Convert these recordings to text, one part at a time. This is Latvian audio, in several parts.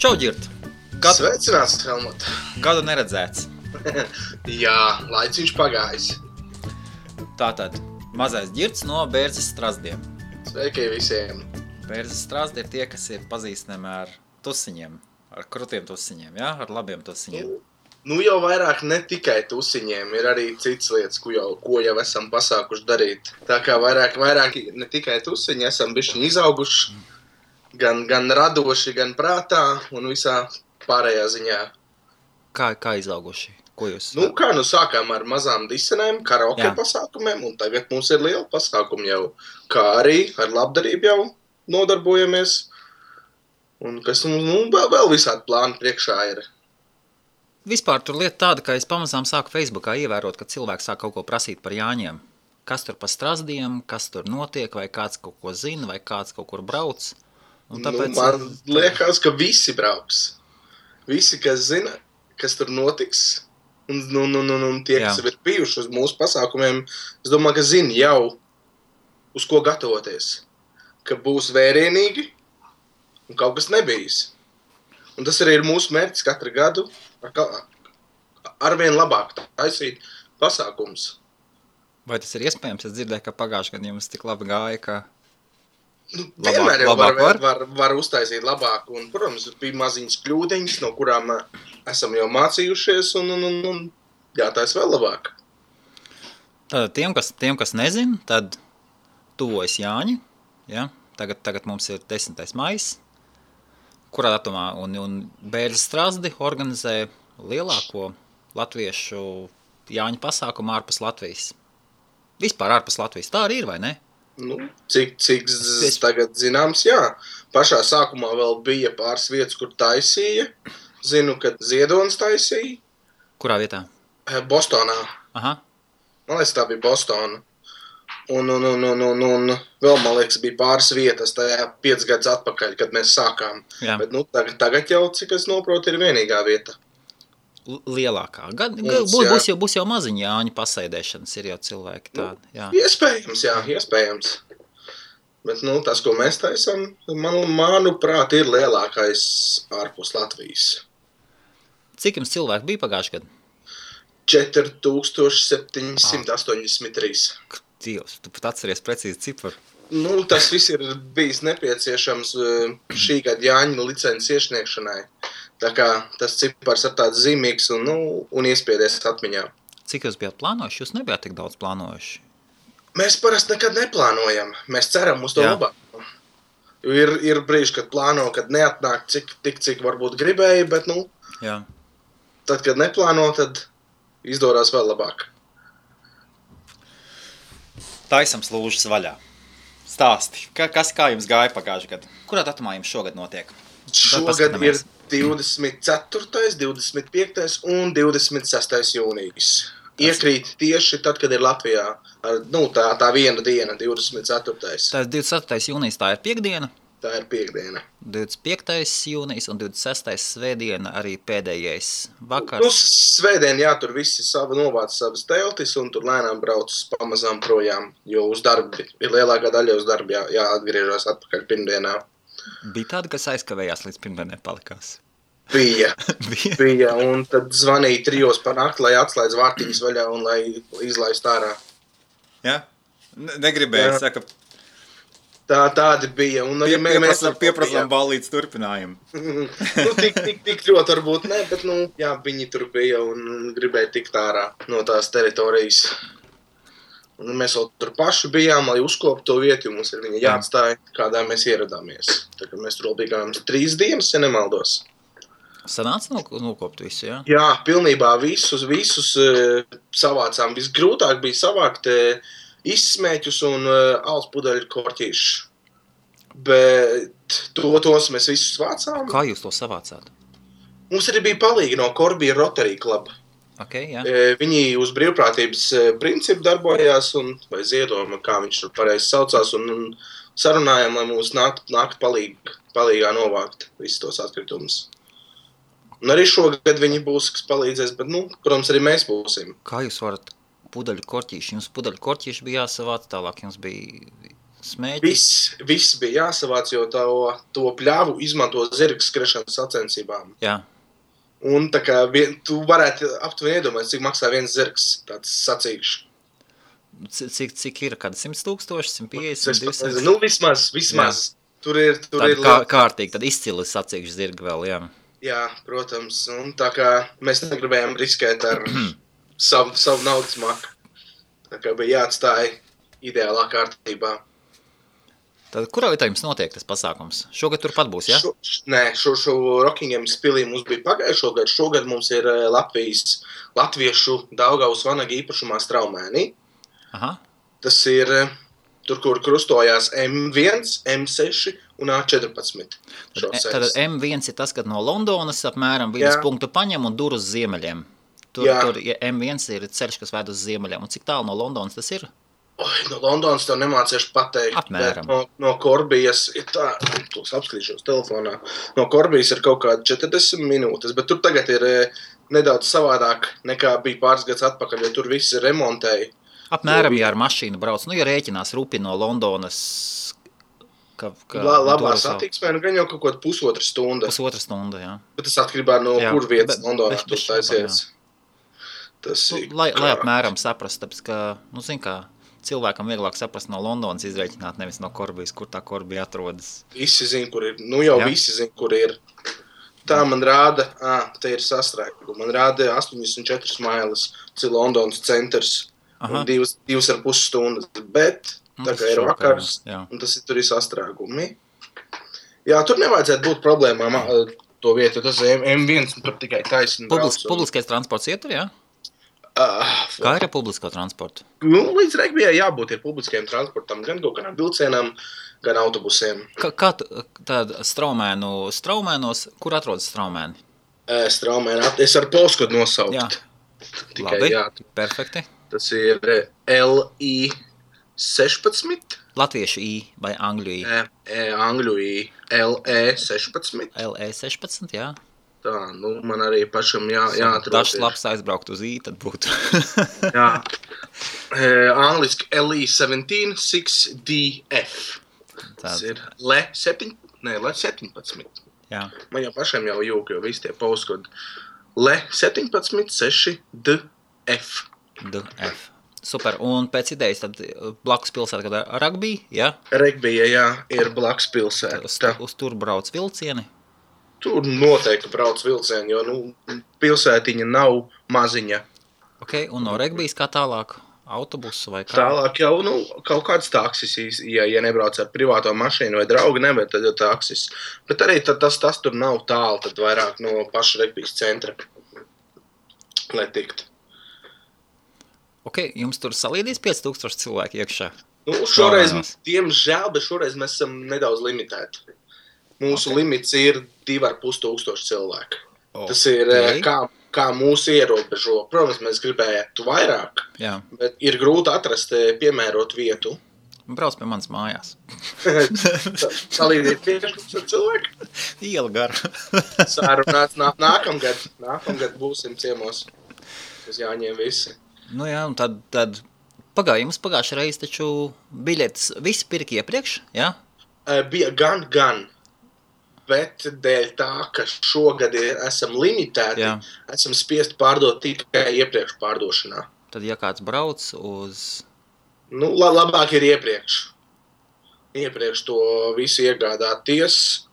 Čau, Ģirt! Sveicināts, Helmut! Gadu neredzēts. Jā, laiciņš pagājis. Tātad, mazais Ģirts no Bērzes Strazdiem. Sveiki visiem! Bērzes Strazdi ir tie, kas ir pazīstami ar tusiņiem, ar krutiem tusiņiem, ja? Ar labiem tusiņiem. Nu jau vairāk ne tikai tusiņiem, ir arī citas lietas, ko jau esam pasākuši darīt. Tā kā vairāk ne tikai tusiņi, esam bišķiņi izauguši, gan radoši, gan prātā un visā pārējā ziņā. Kā izauguši? Ko jūs? Sākām ar mazām disenēm, karaoke pasākumiem, un tagad mums ir liela pasākuma jau, kā arī ar labdarību jau nodarbojamies. Un kas vēl visādi plāni priekšā ir. Vispār tur lieta tāda, ka es pamazām sāku Facebookā ievērot, ka cilvēki sāk kaut ko prasīt par Jāņiem. Kas tur pa Strazdiem, kas tur notiek, vai kāds kaut ko zina, vai kāds kaut kur brauc. Un tāpēc... Man liekas, ka visi brauks. Visi, kas zina, kas tur notiks, un tie, kas ir bijuši uz mūsu pasākumiem, es domāju, ka zina jau, uz ko gatavoties. Ka būs vērienīgi un kaut kas nebijis. Un tas arī ir mūsu mērķis katru gadu arvien labāk taisīt pasākums. Vai tas ir iespējams? Es dzirdēju, ka pagājušajā gadā jums tik labi gāja, ka... Vienmēr jau var uztaisīt labāk, un, protams, bija maziņas kļūdiņas, no kurām esam jau mācījušies, un jātais vēl labāk. Tātad tiem, kas nezin, tad tuvojas Jāņi, ja? Tagad mums ir 10. maijs, kurā datumā, un Bērzes Strazdi organizē lielāko latviešu Jāņu pasākumu ārpus Latvijas. Vispār ārpus Latvijas. Tā arī ir, vai ne? Cik tagad zināms, jā. Pašā sākumā vēl bija pāris vietas, kur taisīja. Zinu, ka Ziedonis taisīja. Kurā vietā? Bostonā. Aha. Man liekas, tā bija Bostona. Un vēl, man liekas, bija pāris vietas tajā 5 gadus atpakaļ, kad mēs sākām. Jā. Bet tagad jau, cik es noprotu, ir vienīgā vieta. Lielākā. Būs jau maziņi Jāņu pasēdēšanas, ir jau cilvēki tādi. Jā. Iespējams. Bet, tas, ko mēs taisam, manuprāt, ir lielākais ārpus Latvijas. Cik jums cilvēki bija pagājušajā gadā? 4783. Dievs, tu pat atceries precīzi ciparu. Tas viss ir bijis nepieciešams šī gada Jāņu licences iesniegšanai. Tā kā tas cipars ir tāds zīmīgs un iespiedies atmiņā. Cik jūs bijāt plānojuši? Jūs nebijāt tik daudz plānojuši? Mēs parasti nekad neplānojam. Mēs ceram uz to labāko. Ir brīži, kad plāno, kad neatnāk cik varbūt gribēja, bet tad, kad neplāno, tad izdorās vēl labāk. Taisam slūžas vaļā. Stāsti. Kā jums gāja pagājušajā gadā? Kurā datumā jums šogad notiek? Šogad ir 24., 25. un 26. jūnijas. Iekrīt tieši tad, kad ir Latvijā. Tā viena diena, 24. Tā 24. jūnijas, tā ir piekdiena? Tā ir piekdiena. 25. jūnijas un 26. svētdiena arī pēdējais vakars. Svētdien, tur visi novāc savas teltis un tur lēnām brauc pamazām projām, jo uz darbi ir lielākā daļa uz darbi jāatgriežas atpakaļ pirmdienā. Bija tāda, kas aizkavējās līdz pirmdienai palikās? Bija, un tad zvanīja 3 par nakti, lai atslēdz vārtiņas vaļā un lai izlaist ārā. Jā? Negribēju, saka... Tādi bija. Un mēs pieprasām ballītes turpinājumu. Tik ļoti varbūt ne, bet viņi tur bija un gribēja tikt ārā no tās teritorijas. Un mēs vēl tur paši bijām, lai uzkoptu to vietu, jo mums ir viņa jāatstāja, kādā mēs ieradāmies. Tā kā mēs tur vēl bijām 3 dienas, ja nemaldos. Sanāca nokopt visu, jā? Jā, pilnībā visus savācām. Visgrūtāk bija savākt izsmēķus un alus pudeļu korķīšus. Bet tos mēs visus vācām. Kā jūs to savācāt? Mums arī bija palīgi no Korbija Rotary Club. Okay, jā. Viņi uz brīvprātības principu darbojās, vai ziedojuma, kā viņš tur pareizi saucās, un sarunājām, lai mums nākt palīgā novākt visus tos atkritumus. Un arī šogad viņi būs, kas palīdzēs, bet, protams, arī mēs būsim. Kā jūs varat pudeļu korķīši? Jums pudeļu korķīši bija jāsavāc, tālāk jums bija smēķi. Viss bija jāsavāc, jo to pļāvu izmanto zirga skriešanas sacensībām. Jā. Un tā kā tu varētu aptuveni iedomāt, cik maksā viens zirgs, tāds sacīkšs. Cik ir, kāda 100,000, 150, 200? Nu, vismaz. Jā. Tur ir kārtīgi, tad izcili sacīkšs zirgi vēl, jā. Jā, protams. Un tā kā mēs negribējām riskēt ar savu naudas maku. Tā kā bija jāatstāja ideālā kārtībā. Tad kurā vietā jums notiek tas pasākums? Šogad turpat būs, jā? Šo Rockinghams pilī mums bija pagājušo gadu. Šogad mums ir latviešu Daugavas vanaga īpašumā Straumēnī. Aha. Tas ir tur, kur krustojās M1, M6 un A14. Tad M1 ir tas, kad no Londonas apmēram vidus punktu paņem un dur uz ziemeļiem. Tur M1 ir ceļš, kas ved uz ziemeļiem. Un cik tālu no Londonas tas ir? No Londonas tev nemāciešu pateikt. Apmēram. No Korbijas ir tā, tos apskatīšos telefonā. No Korbijas ir kaut kāda 40 minūtes, bet tur tagad ir nedaudz savādāk nekā bija pāris gads atpakaļ, jo tur viss ir remontēji. Apmēram, ja ar mašīnu brauc, ja rēķinās rupi no Londonas. Labā satiksmē, gan jau kaut kāda pusotra stunda. Pusotra stunda, jā. Bet tas atkarībā no kur vietas Londonā tu taisies. Lai apmēram saprast, tāpēc, ka, zin kā, cilvēkam vieglāk saprast no Londonas izreikināt, nevis no Korbijas, kur tā Korbija atrodas. Visi zin, kur ir. Visi zin, kur ir. Tā man rāda, te ir sastrēguma. Man rāda 84 mailes, tas ir Londonas centrs. Un 2,5 stundas. Bet, tā kā ir vakars, un tas tur ir sastrēgumi. Jā, tur nevajadzētu būt problēmām to vietu, jo tas M1 tur tikai taisni brauc. Publiskais transports ietur, jā? Kā ir ar publisko transportu? Līdz Regbijai jābūt ir publiskajam transportam, gan kaut kādām vilcienām, gan autobusiem. Kā tāda Straumēnos, kur atrodas Straumēni? Straumēni, es ar postkodu nosaukt. Jā, tikai, labi, perfekti. Tas ir LI 16. Latviešu I vai angļu I? Angļu I, LE 16. LE 16, jā. Tā, man arī pašam jāatrod. Dažs labs aizbraukt uz I, tad būtu. Jā. Angliski LE 17 6DF. Tas ir LE 17. Jā. Man jau pašam jau jūk, jo visi tie postkodi. LE 17 6DF. DF. Super. Un pēc idejas tad blakus pilsēta, kad Rugby, jā? Regbija, jā, ir blakus pilsēta. Uz tur brauc vilcieni? Tur noteikti brauc vilcieni, jo pilsētiņa nav maziņa. Ok, un no Regbijas kā tālāk? Autobusu vai kā? Tālāk jau kaut kāds taksis, ja nebrauc ar privāto mašīnu vai draugu, nevar, tad jau taksis. Bet arī tas tur nav tālu, tad vairāk no paša Regbijas centra, lai tikt. Ok, jums tur salīdīs 5000 cilvēki iekšā? Šoreiz, diemžēl, bet šoreiz mēs esam nedaudz limitēti. Mūsu limits ir 2500 cilvēku. Tas ir, kā mūsu ierobežo. Protams, mēs gribētu vairāk, bet ir grūti atrast piemērot vietu. Brauc pie manas mājās. Salīdīt 5000 cilvēku? Iela gara. Sārunāts nākamgad būsim ciemos. Uz jāņem visi. Nu jā, un tad jums pagājušajā reiz taču biļetes visi pirka iepriekš, jā? Bija gan, bet dēļ tā, ka šogad esam limitēti, esam spiest pārdot tikai iepriekš pārdošanā. Tad, ja kāds brauc uz... Labāk ir iepriekš. Iepriekš to visu iegādāties,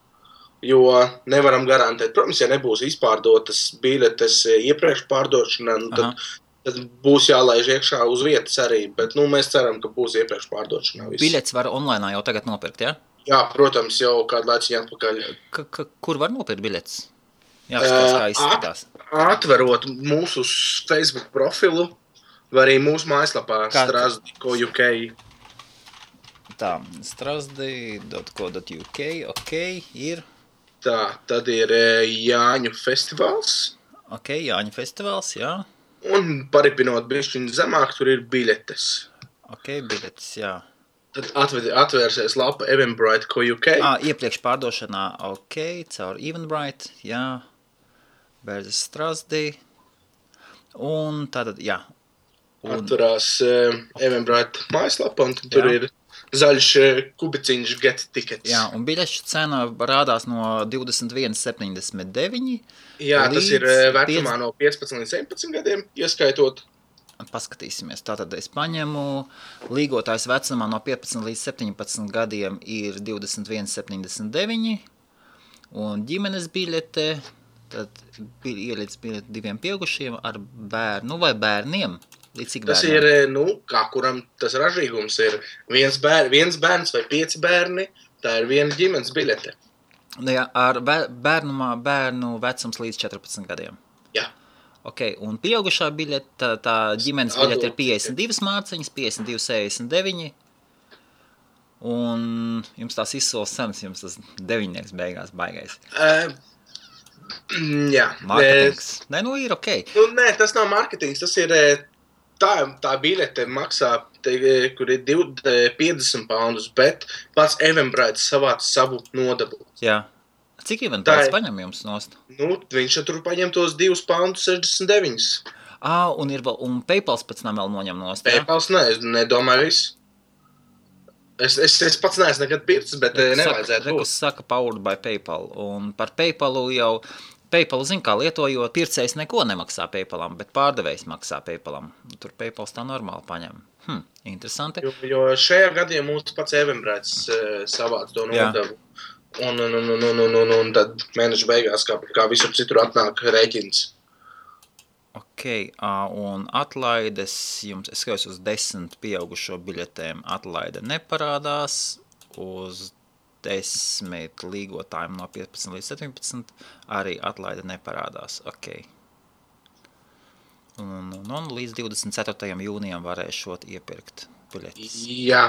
jo nevaram garantēt. Protams, ja nebūs izpārdotas biļetes iepriekš pārdošanā, tad būs jālaiž iekšā uz vietas arī, bet mēs ceram, ka būs iepriekš pārdošanā viss. Biļetes var online jau tagad nopirkt, jā? Jā, protams, jau kādu laiciņu atpakaļ. Kur var nopirkt biļetes? Jāskatās, kā izskatās. Atverot mūsu Facebook profilu, vai arī mūsu mājaslapā strasdi.co.uk. Tā, strasdi.co.uk, ok, ir... Tā, tad ir Jāņu festivāls. Ok, Jāņu festivāls, jā. Un paripinot bišķiņu zemāk, tur ir biļetes. Ok, biļetes, jā. Tad atvērsies lapa Eventbrite.co.uk. Iepriekš pārdošanā, ok, caur Eventbrite, jā. Bērzes Strasdi. Un tātad, jā. Atturās Eventbrite mājaslapa, un tur ir zaļš kubiciņš get tickets. Jā, un biļešu cena rādās no 21,79. Jā, tas ir vecumā no 15 līdz 17 gadiem, ieskaitot. Paskatīsimies. Tātad es paņemu līgotājs vecumā no 15 līdz 17 gadiem ir 21,79 un ģimenes biļete, tad ieliec biļete 2 pieaugušiem ar bērnu vai bērniem. Līdz cik tas bērniem? Ir, kā kuram tas ražīgums ir viens bērns vai 5 bērni, tā ir viena ģimenes biļete. Jā, ar bērnu vecums līdz 14 gadiem. Jā. Ok, un pieaugušā biļete, tā ģimenes biļete ir 52 mārciņas, 52,69. Un jums tās izsoles cenas, jums tas 9 beigās baigais. Jā. Marketings. Nē, nu ir ok. Nē, tas nav marketings, tas ir tā biļete maksā, kur ir 50 poundus, bet pats Eventbrite savāc savu nodevu. Jā. Cik Eventbrite paņem jums nost? Viņš tur paņem tos 2,69 £. Un PayPals pēc tam vēl noņem nost, jā? PayPals nedomāju visu. Es pats neesmu nekad pircis, bet nevajadzētu būt. Rekus saka powered by PayPal, un par PayPalu jau, PayPalu zin kā lietojot, pircējs neko nemaksā PayPalam, bet pārdevējs maksā PayPalam. Tur PayPals tā normāli paņem. Interesanti. Jo šajā gadījumā mūsu pats Eventbrite savāc to nodevu. Un tad mēneša beigās, kā visur citur, atnāk rēķins. Ok, un atlaides jums, es skatos uz 10 pieaugušo biļetēm, atlaide neparādās, uz 10 līgotājiem no 15 līdz 17 arī atlaide neparādās. Ok. Un līdz 24. jūnijam varēšot iepirkt biļetes. Jā.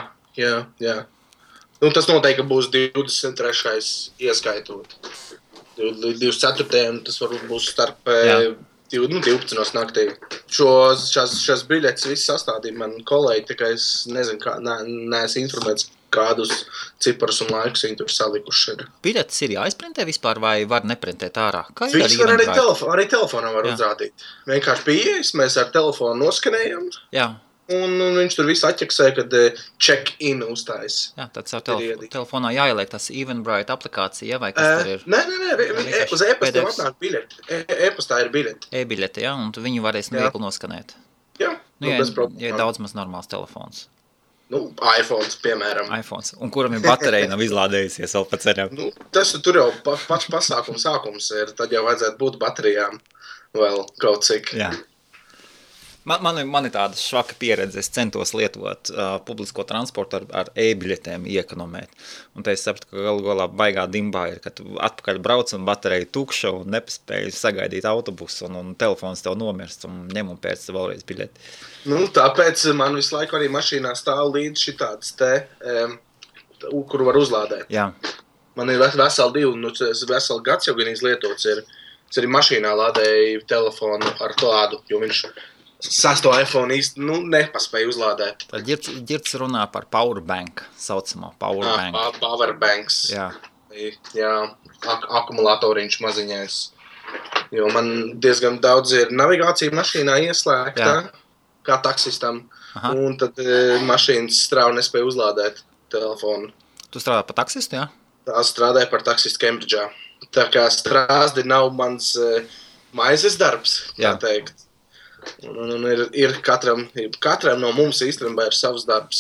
Tas noteikti būs 23. ieskaitot. 24. tas varbūt būs starp 12 naktī. Šās biļetes viss sastādīja man kolēģi, tikai es nezinu, neesmu informēts, kādus ciparus un laikus viņi tur salikuši ir. Biļetes ir jāizprintē vispār vai var neprintēt ārā? Viss var arī telefonā var uzrādīt. Vienkārši pieejas, mēs ar telefonu noskanējam. Jā. Un viņš tur visu atķeksē, kad check-in uzstājas. Jā, tad savu telefonā jāieliek tas Eventbrite aplikācija, vai kas tur ir? Nē, uz e-pastiem atnāk biļeti. E-pastā ir biļeti. E-biļeti, jā, un viņi varēs viegli noskanēt. Jā, ja daudz maz normāls telefons. iPhones, piemēram. iPhones, un kuram ir baterija nav izlādējusies vēl pa ceļam. Tas tur jau pats pasākums sākums ir, tad jau vajadzētu būt baterijām vēl kaut cik. Jā. Man ir tāda švaka pieredze, es centos lietot publisko transportu ar e-biļetēm iekonomēt. Un te es sapratu, ka galā baigā dimbā ir, ka tu atpakaļ brauc un baterija tukša un nepaspēji sagaidīt autobusu un telefons tev nomirst un ņem un pēc vēlreiz biļeti. Tāpēc man visu laiku arī mašīnā stāv līdz šitāds kuru var uzlādēt. Jā. Man ir veseli gads jau gan izlietots ir. Es arī mašīnā lādēju telefonu ar klādu, jo viņš sasto iPhone īsti nepaspēja uzlādēt. Tad ģirds runā par powerbank, saucamo powerbank. Powerbanks. Jā, akumulatoriņš maziņais. Jo man diezgan daudz ir navigācija mašīnā ieslēgta, kā taksistam. Aha. Un tad mašīnas strāva nespēja uzlādēt telefonu. Tu strādā par taksistu, jā? Tā strādāja par taksistu Cambridge'ā. Tā kā strāzdi nav mans maizes darbs, kā teikt. Un ir katram no mums īstenībā ir savs darbs.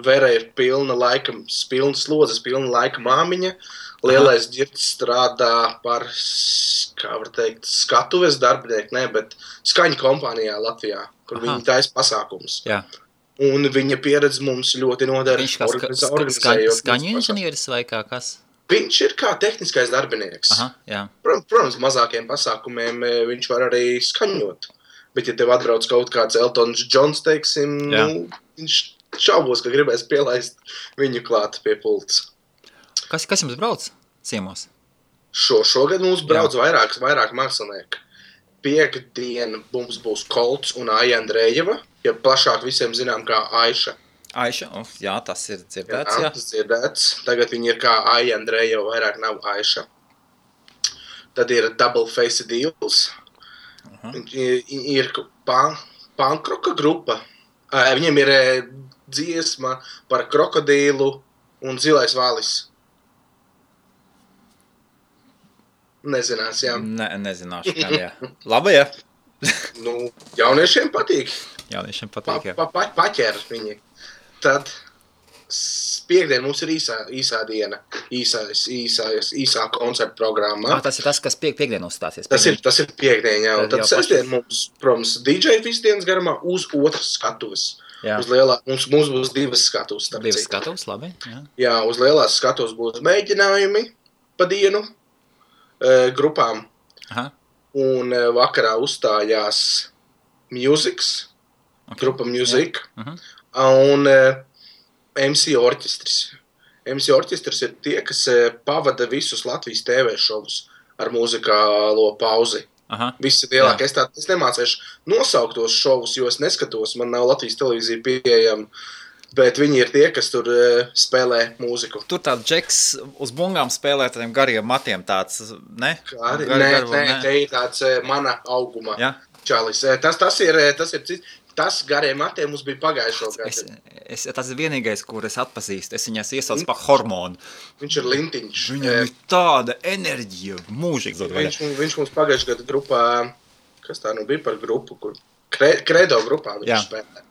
Vera ir pilna slodzes, pilna laika māmiņa. Lielais ģirds strādā par, kā var teikt, skatuves darbinieku, bet skaņu kompānijā Latvijā, kur viņi taisa pasākums. Jā. Un viņa pieredze mums ļoti noder. Viņš kā skaņu inženieris vai kā kas? Viņš ir kā tehniskais darbinieks. Aha, jā. Protams, mazākiem pasākumiem viņš var arī skaņot. Bet, ja tev atbrauc kaut kāds Eltons Johns, teiksim, viņš šaubos, ka gribēs pielaist viņu klāt pie pults. Kas jums brauc ciemos? Šogad mums brauc vairāk mākslinieki. Piektdien mums būs Kolts un Aija Andrejeva, ja plašāk visiem zinām kā Aiša. Aiša, jā, tas ir dzirdēts, jā. Tas dzirdēts. Tagad viņi ir kā Aija Andrejeva, vairāk nav Aiša. Tad ir Double Face Deals. Ir pankroka grupa. Viņiem ir dziesma par krokodīlu un zilais valis. Nezinās, jā. Nezināšu, gan, jā. Labi, jā. Jauniešiem patīk. Jauniešiem patīk, jā. Paķer viņi. Tad piekdien mums ir īsā diena, īsā koncerta programma. Tas ir tas, kas piekdien uzstāsies. Tas ir piekdien, jā. Un tad sestdien mums, protams, DJ visu dienas garumā uz otras skatuves. Uz mums būs divas skatuves. Divas skatuves, labi. Jā. Jā, uz lielās skatuves būs mēģinājumi pa dienu grupām. Aha. Un vakarā uzstājās Musics, grupa Music. Un MC Orķestris. MC Orķestris ir tie, kas pavada visus Latvijas TV šovus ar muzikālo pauzi. Aha. Visi lielākie. Es nemācēšu nosaukt tos šovus, jo es neskatos, man nav Latvijas televīzija pieejama, bet viņi ir tie, kas tur spēlē mūziku. Tur tāds džeks uz bungām spēlē tādiem gariem matiem tāds, ne? Nē, te ir tāds mana auguma čalis. Tas ir cits. Tas gariem matiem mums bija pagājušo gadu. Tas ir vienīgais, kur es atpazīstu. Es viņas iesaucu par hormonu. Viņš ir lintiņš. Viņam ir tāda enerģija, mūžīgs. Viņš mums pagājušo gadu grupā, kas tā bija par grupu, kur Kredo grupā viņš spēlē.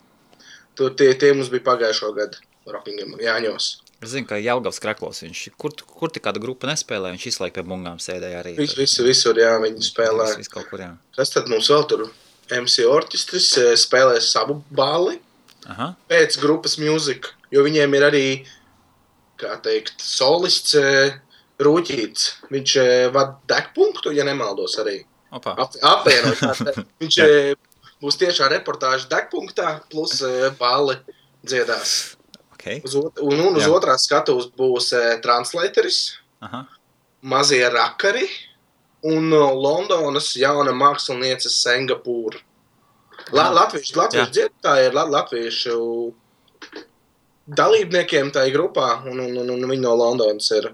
Tur tie mums bija pagājušo gadu Rockingham Jāņos. Es zinu, ka Jelgavs Kreklos viņš, kur tik kāda grupa nespēlē, viņš izlaik pie bungām sēdēja arī. Visur, jā, viņi spēlē. Viss kaut kur, jā. Kas tad mums vēl tur? MC Orķestris spēlēs savu bāli pēc grupas Music, jo viņiem ir arī, kā teikt, solists Rūķīts. Viņš vada degpunktu, ja nemaldos arī. Apvienot. Viņš būs tiešā reportāža degpunktā, plus bāli dziedās. Okay. Un uz otrās skatuves būs translatoris, mazie rakari, un Londonas jauna māksliniece Singapūra. Latviešu dziedātāji ir latviešu dalībniekiem tajā grupā, un viņi no Londonas ir.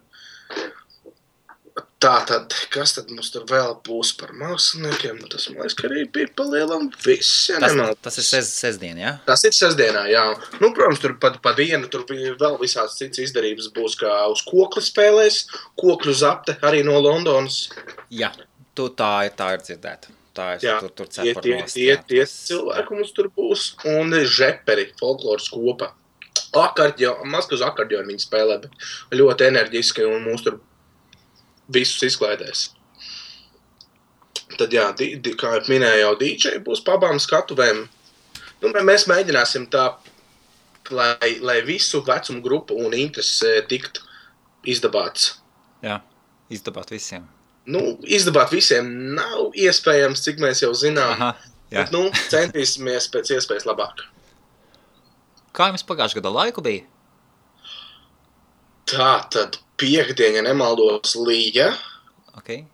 Tātad, kas tad mums tur vēl būs par māksliniekiem? Tas, man liekas, ka arī bija palielam viss, ja nemaldos. Tas ir sestdien, jā? Tas ir sestdienā, jā. Protams, tur pa dienu tur vēl visāds cits izdarības būs, kā uz kokli spēlēs, kokļu zapte arī no Londonas. Jā, tā ir dzirdēta. Tur cepar nost. Tie cilvēki mums tur būs. Un žeperi, folkloras kopa. Maz uz akordionu viņi spēlē, bet ļoti enerģiski un mūs tur visus izklaidēs. Tad jā, kā minēju, jau DJ būs pa abām skatuvēm. Mēs mēģināsim tā, lai visu vecumu grupu un intereses tiktu izdabāts. Jā, izdabāt visiem. Izdabāt visiem nav iespējams, cik mēs jau zinām. Aha, jā. Bet, centīsimies pēc iespējas labāk. Kā jums pagājušā gada laiku bija? Tā tad piekdien, ja nemaldos, līja. Okay.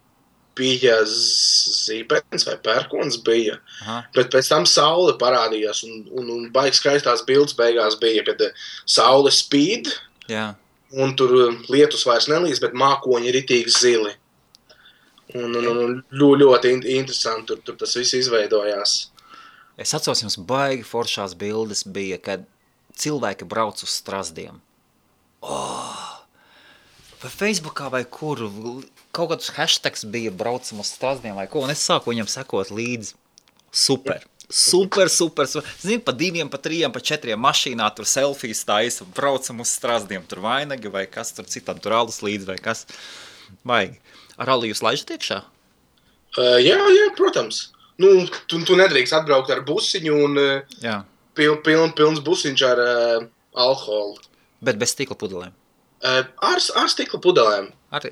Bija zīpens vai pērkons bija. Aha. Bet pēc tam saule parādījās un baigi skaistās bildes beigās bija, kad saule spīd. Jā. Un tur lietus vairs nelīs, bet mākoņi ir ritīgi zili. Un ļoti interesanti tur tas viss izveidojās. Es atceros, jums baigi foršās bildes bija, kad cilvēki brauc uz strazdiem. Vai Facebookā vai kur, kaut kādus hashtags bija braucam uz strazdiem vai ko, un es sāku viņam sekot līdzi. Super. Zini, pa 2, pa 3, pa 4 mašīnā tur selfijas taisa, braucam uz strazdiem, tur vainagi vai kas tur citam, tur alus līdzi vai kas. Baigi. Ar alu jūs laižat iekšā? Jā, protams. Tu nedrīkst atbraukt ar busiņu un pilns busiņš ar alkoholu. Bet bez stikla pudelēm? Ar stikla pudelēm. Arī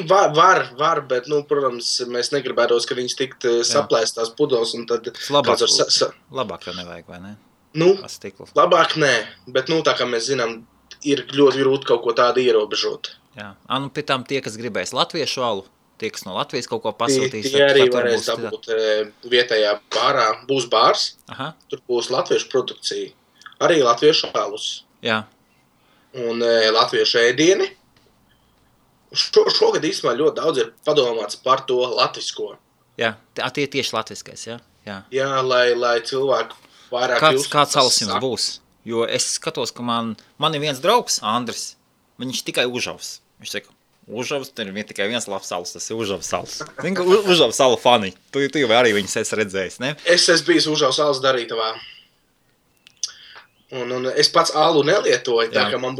var, bet, protams, mēs negribētos, ka viņas tikt saplēstās pudeles un tad... Labāk jau nevajag, vai ne? Labāk nē, bet, tā kā mēs zinām, ir ļoti grūti kaut ko tādu ierobežot. Jā, pie tām tie, kas gribēs latviešu alu, tie, kas no Latvijas kaut ko pasūtīs. Tie arī varēs dabūt vietējā bārā. Būs bārs, tur būs latviešu produkcija. Arī latviešu alus. Jā. Un latviešu ēdieni. Šogad īstenībā ļoti daudz ir padomāts par to latvisko. Jā, tie tieši latviskais, jā? Jā, lai cilvēku Kāds salas jums būs? Jo es skatos, ka man ir viens draugs, Andris, viņš tikai Užavs. Viņš saka, Užavs, tur ir tikai viens labs salas, tas ir Užavs salas. Užavs salu fani. Tu jau arī viņus esi redzējis, ne? Es esmu bijis Užavs salas darītavā. Un es pats alu nelietoju, tā ka man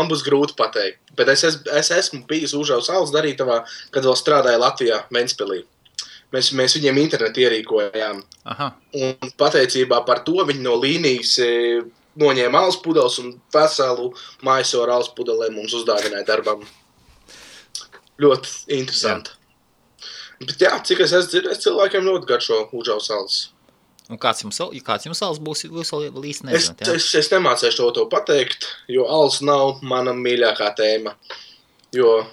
būs grūti pateikt. Bet es esmu bijis Užavs salas darītavā, kad vēl strādāju Latvijā, Ventspilī. Mēs viņiem internetu ierīkojām. Aha. Un pateicībā par to viņi no līnijas noņēma alus pudeles un veselu maisoru alus pudelēm mums uzdāvināja darbam. Ļoti interesanti. Jā. Bet jā, cik es esmu dzirdējis, cilvēkiem ļoti garšo Užavs salas. Un kāds jums salas būs, jūs vēl īsti nezināt, jā? Es nemācēšu to pateikt, jo alus nav mana mīļākā tēma. Jo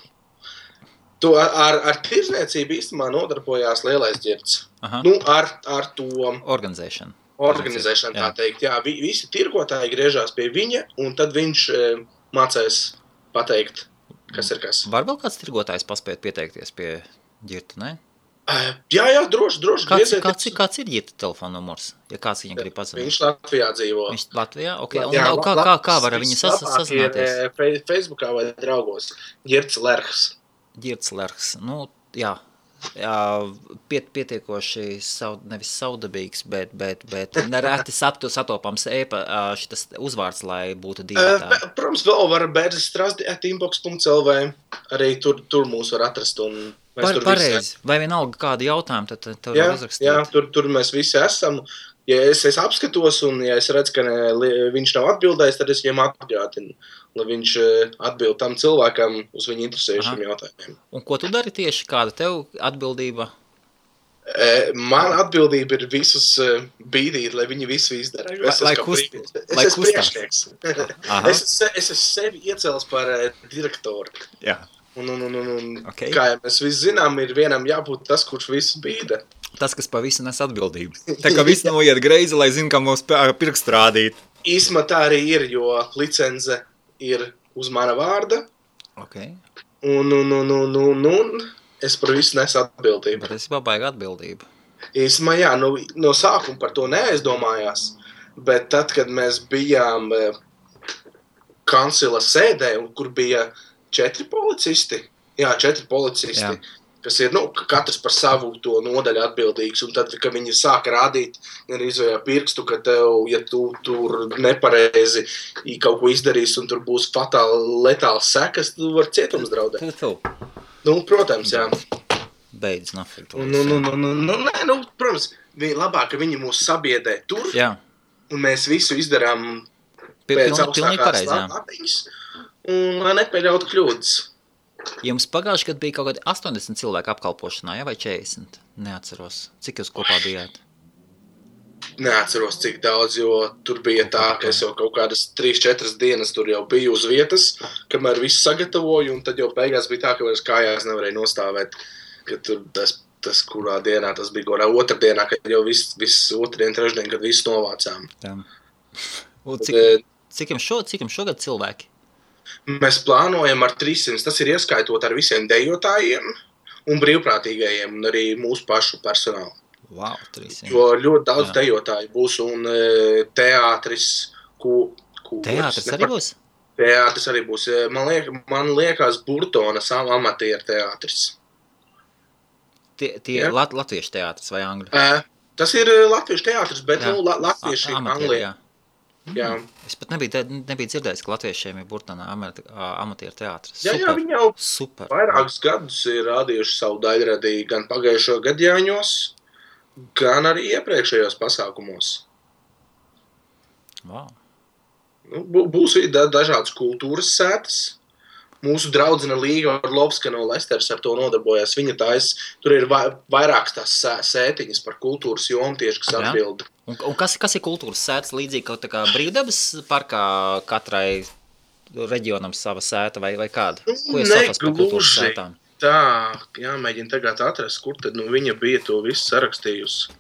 to ar tirzniecību īstenībā nodarbojās Lielais ģirds. Aha. Nu, ar to organizēšanu, tā teikt. Jā, visi tirgotāji griežās pie viņa, un tad viņš mācēs pateikt, kas ir kas. Var vēl kāds tirgotājs paspēt pieteikties pie ģirta, ne? Jā, droši. Kāds ir ģirta telefona numurs, ja kāds viņam grib pazvanīt? Viņš Latvijā dzīvo. Viņš Latvijā? Ok, un jā, kā var viņu sazināties? Facebookā vai draugos. Ģirts Lerhs. Ģirts Lerhs, nu, jā, pietiekoši nevis saudabīgs, bet nereti satopams šitas uzvārds, lai būtu divatā. Protams, vēl var bērzistrasdi@inbox.lv, arī tur mūs var atrast. Pareizi, vai vienalga kādu jautājumu, tad tur var uzrakstīt. Jā, tur mēs visi esam. Ja es apskatos un ja es redzu, ka viņš nav atbildējis, tad es viņam atgādinu, lai viņš atbild tam cilvēkam uz viņu interesējušiem jautājumiem. Un ko tu dari tieši? Kāda tev atbildība? Man atbildība ir visus bīdīt, lai viņi visu izdara. Es esmu priekšnieks. Es esmu sevi iecēlis par direktoru. Jā. Un okay. Kā jau mēs visi zinām, ir vienam jābūt tas, kurš visu bīda. Tas, kas pa visu nes atbildību. Tā kā viss noiet greizi, lai zinu, kā mums pirkstu rādīt. Īsmā tā arī ir, jo licence ir uz mana vārda. Okay. Un es par visu nesu atbildību. Bet es baigi atbildību. Īsmā jā, no sākuma par to neaizdomājās, bet tad, kad mēs bijām kancila sēdē, kur bija 4 policisti, kas ir, katrs par savu to nodaļu atbildīgs, un tad, kad viņi sāka rādīt, izvējā pirkstu, ka tev, ja tu tur nepareizi kaut ko izdarīs, un tur būs fatāli letāls sekas, tu var cietums draudēt. Protams, jā. Beidz, nafik to. Protams, labāk, ka viņi mūs sabiedē tur, jā. Un mēs visu izdarām pēc augstākās lapiņas, un lai nepieļautu kļūdas. Jums pagājuši, kad bija kaut kādi 80 cilvēku apkalpošanā, vai 40? Neatceros. Cik jūs kopā bijāt? Neatceros, cik daudz, jo tur bija tā, ka es jau kaut kādas 3-4 dienas tur jau biju uz vietas, kamēr visu sagatavoju, un tad jau beigās bija tā, ka vairs kājās nevarēja nostāvēt, ka tur tas kurā dienā, tas bija gorā otrdienā, kad jau viss otrdien, trešdien, kad visu novācām. Cik jums šogad cilvēki? Mēs plānojam ar 300, tas ir ieskaitot ar visiem dejotājiem un brīvprātīgajiem un arī mūsu pašu personālu. Wow, 300. Jo ļoti daudz dejotāju būs un teātris, Teātris arī būs? Teātris arī būs. Man liekas Burtonas amatieru teātris. Tie latviešu teātris vai angļu? Tas ir latviešu teātris, bet latvieši Anglijā. Jā. Es pat nebiju dzirdējis, ka latviešiem ir Burtonā amatieru teātris. Jā, viņi jau vairākus gadus ir rādījuši savu daļradī gan pagājušo gadjāņos, gan arī iepriekšējos pasākumos. Wow. Būs dažādas kultūras sētas. Mūsu draudzene Līga Orlovska no Lesteras ar to nodarbojās. Viņa tur ir vairākas tās sētiņas par kultūras jomu tieši, kas atbilda. Un kas ir kultūras sētas līdzīgi kaut kā brīvdabas parkā katrai reģionam sava sēta vai kāda? Ko jūs saprast par kultūras sētām? Tā, jāmēģina tagad atrast, kur tad viņa bija to visu sarakstījusi.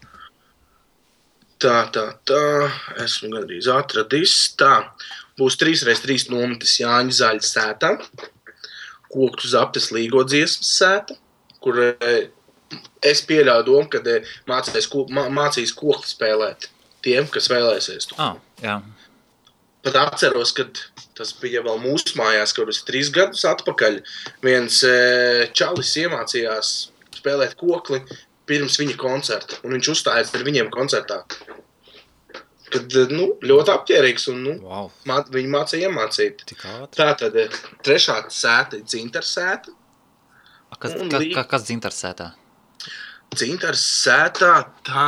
Tā, esmu gandrīz atradis. Tā, būs 3x3 nometis Jāņa Zaļa sētā, Koktu Zaptes Līgo dziesmas sēta, kur es pieļauju domu, kad mācīs kokli spēlēt tiem, kas vēlēsies to. Jā. Pat atceros, kad tas bija vēl mūsu mājās, kaut kas 3 gadus atpakaļ. Viens čalis iemācījās spēlēt kokli pirms viņa koncerta, un viņš uzstājās ar viņiem koncertā. Kad, ļoti apķērīgs, un Wow. Viņi mācīja iemācīt. Tik ātri. Tātad 3. sēta ir dzintars sēta. Kas dzintars sētā? Dzintars sētā tā.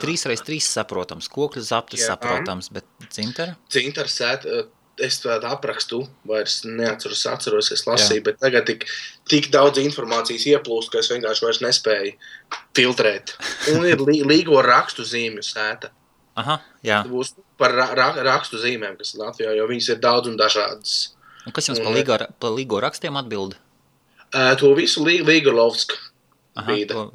3x3 saprotams, kokļu zaptis saprotams, bet dzintara? Dzintars sēta, es tādu aprakstu vairs atceros, es lasīju, bet tagad tik daudz informācijas ieplūst, ka es vienkārši vairs nespēju filtrēt. Un ir līgo rakstu zīmju sēta. Aha, jā. Tas būs par rakstu zīmēm, kas ir Latvijā, jo viņas ir daudz un dažādas. Un kas jums pa līgo rakstiem atbild? To visu Līgolovska bīda.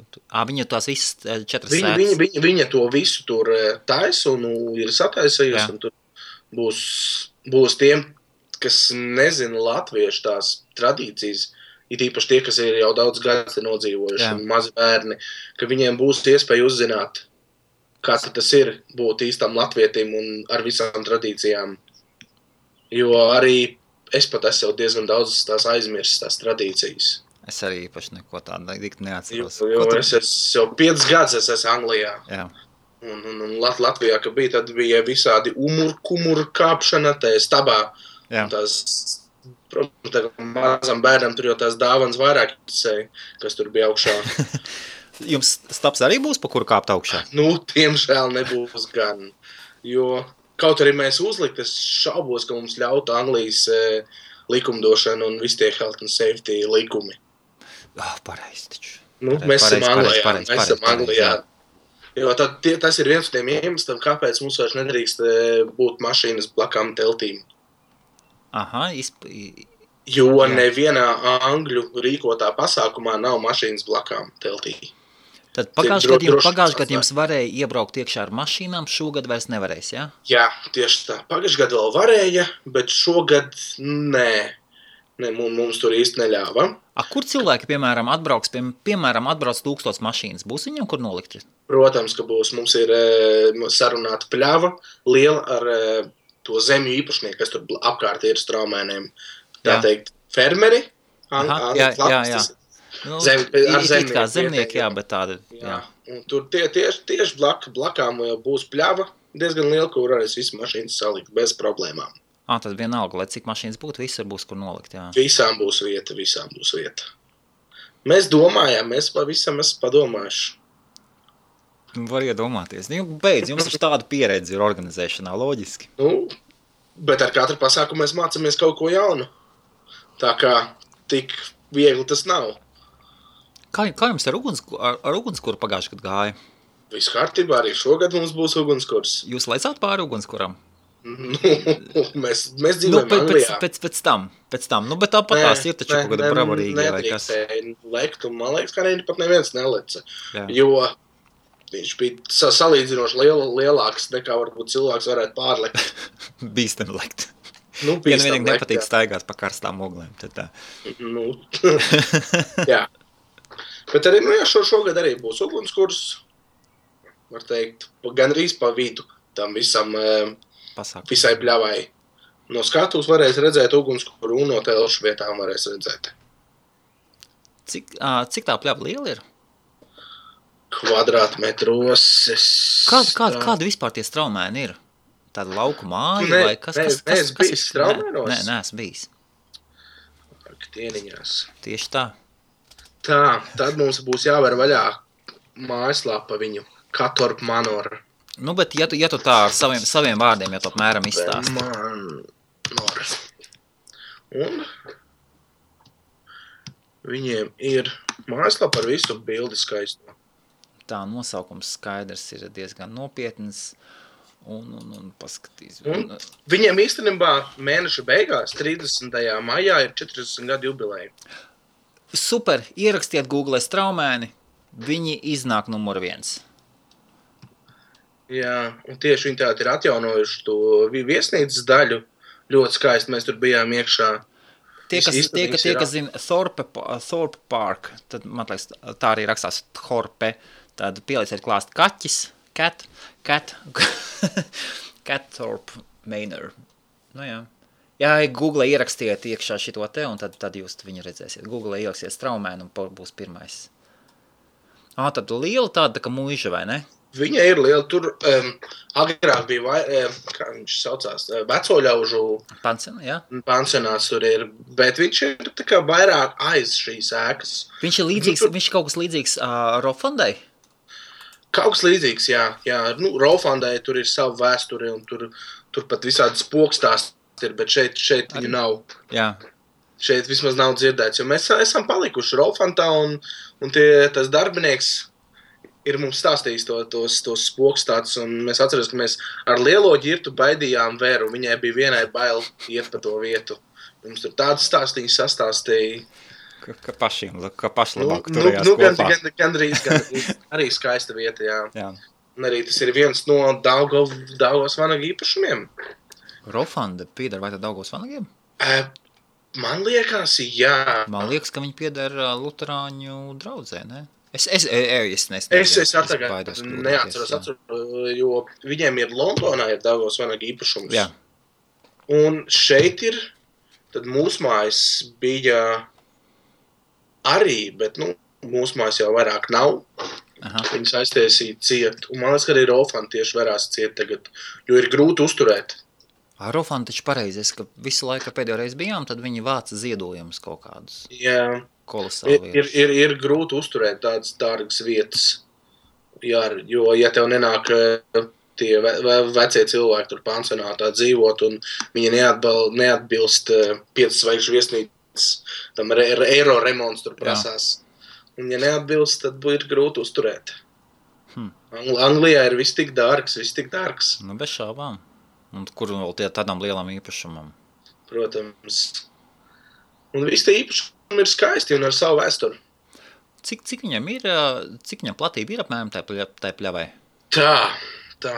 Viņa tās visas 4 sētas. Viņa to visu tur taisa un ir sataisījusi, un tur būs tiem, kas nezina latviešu tās tradīcijas, ir īpaši tie, kas ir jau daudz gadus nodzīvojuši un mazi bērni, ka viņiem būs iespēja uzzināt, kā tas ir būt īstam latvietim un ar visām tradīcijām. Jo arī es pat esmu diezgan daudz tās aizmirstas, tās tradīcijas. Es arī īpaši neko tādu neatceros. Jo es jau 5 gadus esmu Anglijā. Jā. Un Latvijā, kad bija, tad bija visādi kumuru kāpšana, stabā. Jā. Tās, protams, mazam bērnam tur jau tās dāvanas vairāk interesēja, kas tur bija augšā. Jums stabs arī būs, pa kuru kāpt augšā? Tiemžēl nebūs gan. Jo kaut arī mēs uzlikt, es šaubos, ka mums ļautu Anglijas likumdošana un visi tie health and safety likumi. Pareizi taču. Mēs esam Anglijā. Jo tas ir viens no tiem iemesliem, kāpēc mums vairs nedrīkst būt mašīnas blakām teltīm. Aha, Jo nevienā angļu rīkotā pasākumā nav mašīnas blakām teltī. Tad pagājušajā gadā jums varēja iebraukt iekšā ar mašīnām, šogad vairs nevarēs, jā? Jā, tieši tā. Pagājušajā gadā vēl varēja, bet šogad nē. Mums tur īsti neļāva. Kur cilvēki, piemēram, atbrauc 1000 mašīnas? Būs viņam, kur nolikt? Protams, ka būs. Mums ir sarunāta pļava liela ar to zemju īpašnieku, kas tur apkārt ir straumēniem. Tā teikt, fermeri. Jā. It kā zemnieki, jā, bet tāda. Jā. Un tur tieši blakām būs pļava diezgan liela, kur varēs visu mašīnas salikt bez problēmām. Tad vienalga, lai cik mašīnas būtu, visur būs, kur nolikt, jā. Visām būs vieta. Mēs domājām, mēs pavisam esam padomājuši. Var iedomāties. Jums ir tāda pieredze ir organizēšanā, loģiski. Bet ar katru pasākumu mēs mācāmies kaut ko jaunu. Tā kā tik viegli tas nav. Kā jums ar ugunskura pagājušajā gadā gāja? Viss kārtībā, arī šogad mums būs ugunskurs. Jūs lecāt pāri ugunskuram? Mēs dzīvojam Anglijā. Pēc tam. Bet tāpat tās ir taču kaut kāda bravarīga vai kas. Lekt, un man liekas, ka pat neviens neleca. Jo viņš bija salīdzinoši lielāks nekā varbūt cilvēks varētu pārlekt. Bīstam lekt. Ja vienīgi nepatīk staigāt pa karstām oglēm, tad tā. Jā. Bet arī, šogad arī būs ugunskurs, var teikt, gandrīz pa vidu tam visai pļavai. No skatuves varēs redzēt ugunskuru un no telšu vietām varēs redzēt. Cik tā pļava liela ir? Kvadrātmetros. Kāda vispār tie straumēni ir? Tāda lauku māja vai kas? Neesmu bijis straumēnos? Nē, neesmu bijis. Tieniņās. Tieši tā. Tā, tad mums būs jāver vaļā mājaslāpa viņu. Katorp Manor. Bet ja tu tā ar saviem vārdiem, ja tu apmēram izstāsti. Manor. Un viņiem ir mājaslāpa ar visu bildi skaisto. Tā nosaukums skaidrs ir diezgan nopietns. Un paskatīs. Viņiem īstenībā mēneša beigās, 30. maijā, ir 40 gadu jubileja. Super, ierakstiet Google straumēni, viņi iznāk numur 1. Jā, un tieši viņi tādi ir atjaunojuši to viesnīcas daļu, ļoti skaisti, mēs tur bijām iekšā. Tie, kas zina Thorpe Park, tad, man liekas, tā arī rakstās Thorpe, tad pielieciet klāst kaķis, Catthorpe Manor. Nu jā. Jā, Google ierakstiet iekšā šito te, un tad jūs viņu redzēsiet. Google ieraksiet Straumēnu, un būs pirmais. Tad liela tāda, kā muiža, vai ne? Viņa ir liela. Tur agrāk bija, kā viņš saucās, vecoļaužu pansionāts tur ir, bet viņš ir tā kā vairāk aiz šīs ēkas. Viņš ir līdzīgs, viņš kaut kas līdzīgs Rofandai? Kaut kas līdzīgs, jā. Rofandai tur ir savu vēsturi, un tur pat visādi spokstāsti ir, bet šeit viņu nav. Jā. Šeit vismaz nav dzirdēts, jo mēs esam palikuši Rolfantā, un tas darbinieks ir mums stāstījis tos spokstātus, un mēs atceros, ka mēs ar lielo ģirtu baidījām Veru, viņai bija vienai bail iet pa to vietu. Mums tur tādas stāstīņas sastāstīja. Ka paši labāk turējās kopā. Gandrīz arī skaista vieta, jā. Un arī tas ir viens no Daugavas vanaga īpašumiem. Rolfanda pieder vai tad Daugavas vanagiem? Man liekas, jā. Man liekas, ka viņi pieder luterāņu draudzē, ne? Es neatceros, jo viņiem ir Londonā ir Daugavas vanaga īpašums. Jā. Un šeit ir, tad mūsu mājas bija arī, bet, mūsu mājas jau vairāk nav. Aha. Viņas aiztiesīja ciet. Un man liekas, ka arī Rolfanda tieši varās ciet tagad, jo ir grūti uzturēt. Rolfanda taču pareizi, ka visu laiku pēdējo reizi bijām, tad viņi vāca ziedojumus kaut kādus. Jā. Kolosāli ir grūti uzturēt tādas dārgas vietas, jā, jo, ja tev nenāk tie vecie cilvēki tur pansionātā dzīvot, un viņi neatbilst 5 zvaigžņu viesnīcas, tam eiro remonts tur prasās. Un, ja neatbilst, tad ir grūti uzturēt. Anglijā ir viss tik dārgs. Bez šaubām. Un kur vēl tādām lielām īpašumam? Protams. Un viss tie īpašumi ir skaisti un ar savu vēsturi. Cik viņam platība ir apmēram tai pļavai? Tā. Kā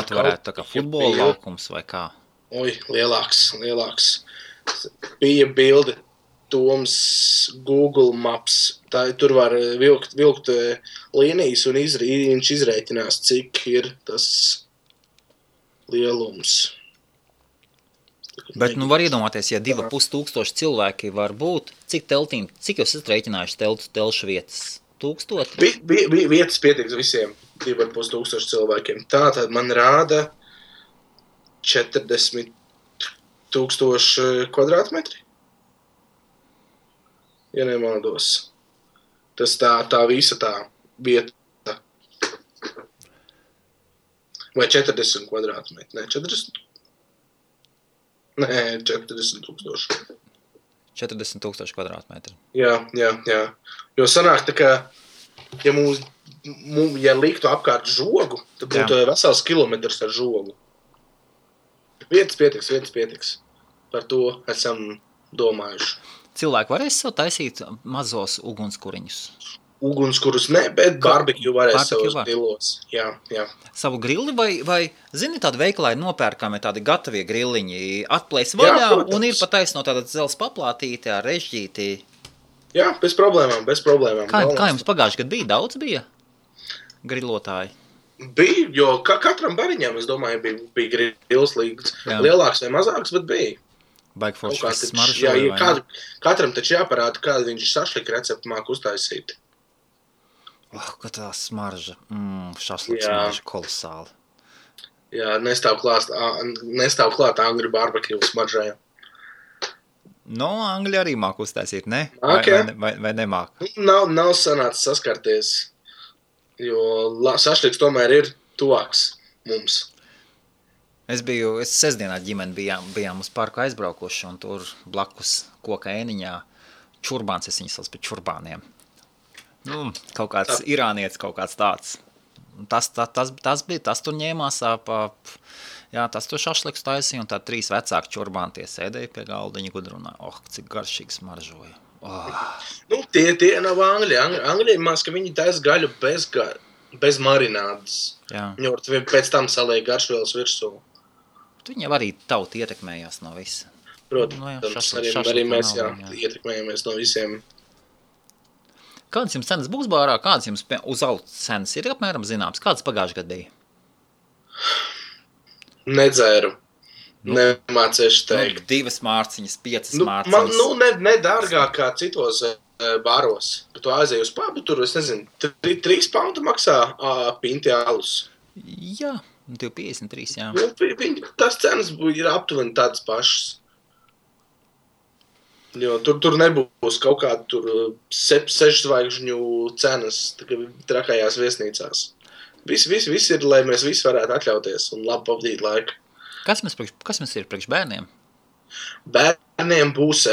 tu varētu, tā kā futbola laukums vai kā? Oi, lielāks. Bija bilde Toms Google Maps. Tur var vilkt līnijas un viņš izrēķinās, cik ir tas lielums. Bet var iedomāties, ja 2500 cilvēki var būt, cik jūs esat rēķinājuši telšu vietas? 1000? Vietas pietiks visiem 2500 cilvēkiem. Tātad man rāda 40 000 kvadrātmetri. Ja nemaldos. Tas tā visa tā vieta. Vai 40 kvadrātmetri? Nē, 40 000. 40 000 kvadrātmetri. Jā. Jo sanāk tā kā, ja liktu apkārt žogu, tad būtu vesels kilometrs ar žogu. Vietas pietiks. Par to esam domājuši. Cilvēki varēs sev taisīt mazos ugunskuriņus? Ugunskurus ne, bet barbekju varēs savos grilos. Jā. Savu grilli vai zini, tādi veikalā ir nopērkami tādi gatavie grilliņi, atplēs vaļā un ir pat taisno tāda dzels paplātīti ar režģīti. Jā, bez problēmām. Kā jums pagājuši gadu bija? Daudz bija grilotāji? Bija, jo katram bariņam, es domāju, bija grils līdz lielāks vai mazāks, bet bija. Baigi forši viss smaržoja, vai ne? Katram taču jāparāda, kādu viņš šašlika receptu māk uztaisīt. Ka tā smarža. Šašliks smarža kolosāli. Jā, nestāv klāt angļu barbekju smaržai. Angļi arī māk uztaisīt, ne? Vai nemāk? Nav sanācis saskarties, jo šašliks tomēr ir tuvāks mums. Es sestdienā ģimeni bijām uz parku aizbraukuši, un tur blakus koka ēniņā čurbāns, es viņas sauc pēc čurbāniem. Kaut kāds irānietis, kaut kāds tāds. Tas tur ņēmās tas tur šašliks taisīja, un tā 3 vecāki čurbāni tie sēdēja pie galdiņa gudrunāja. Cik garšīgi smaržoja. Tie nav angļi. Angļi mās, ka viņi taisa gaļu bez marinādes. Viņi var pēc tam saliek garšvielas virsū. Viņi arī tauti ietekmējās no visa. Protams, arī mēs ietekmējamies no visiem. Kādas jums cenas būs bārā? Kādas jums uz alus cenas ir apmēram zināms? Kādas pagājušajā gadā bija? Nedzēru. Nemācēšu teikt. 2 mārciņas, 5 mārciņas. Ne dārgāk kā citos baros. Tu aizēji uz pubu, tur, es nezinu, 3 poundu maksā pinti alus. Jā, 2,53, jā. Tas cenas ir aptuveni tādas pašas. Jo tur nebūs kaut kāda tur 6 zvaigžņu cenas trakajās viesnīcās. Viss ir, lai mēs visi varētu atļauties un labi pavadīt laiku. Kas mums ir priekš bērniem? Bērniem būs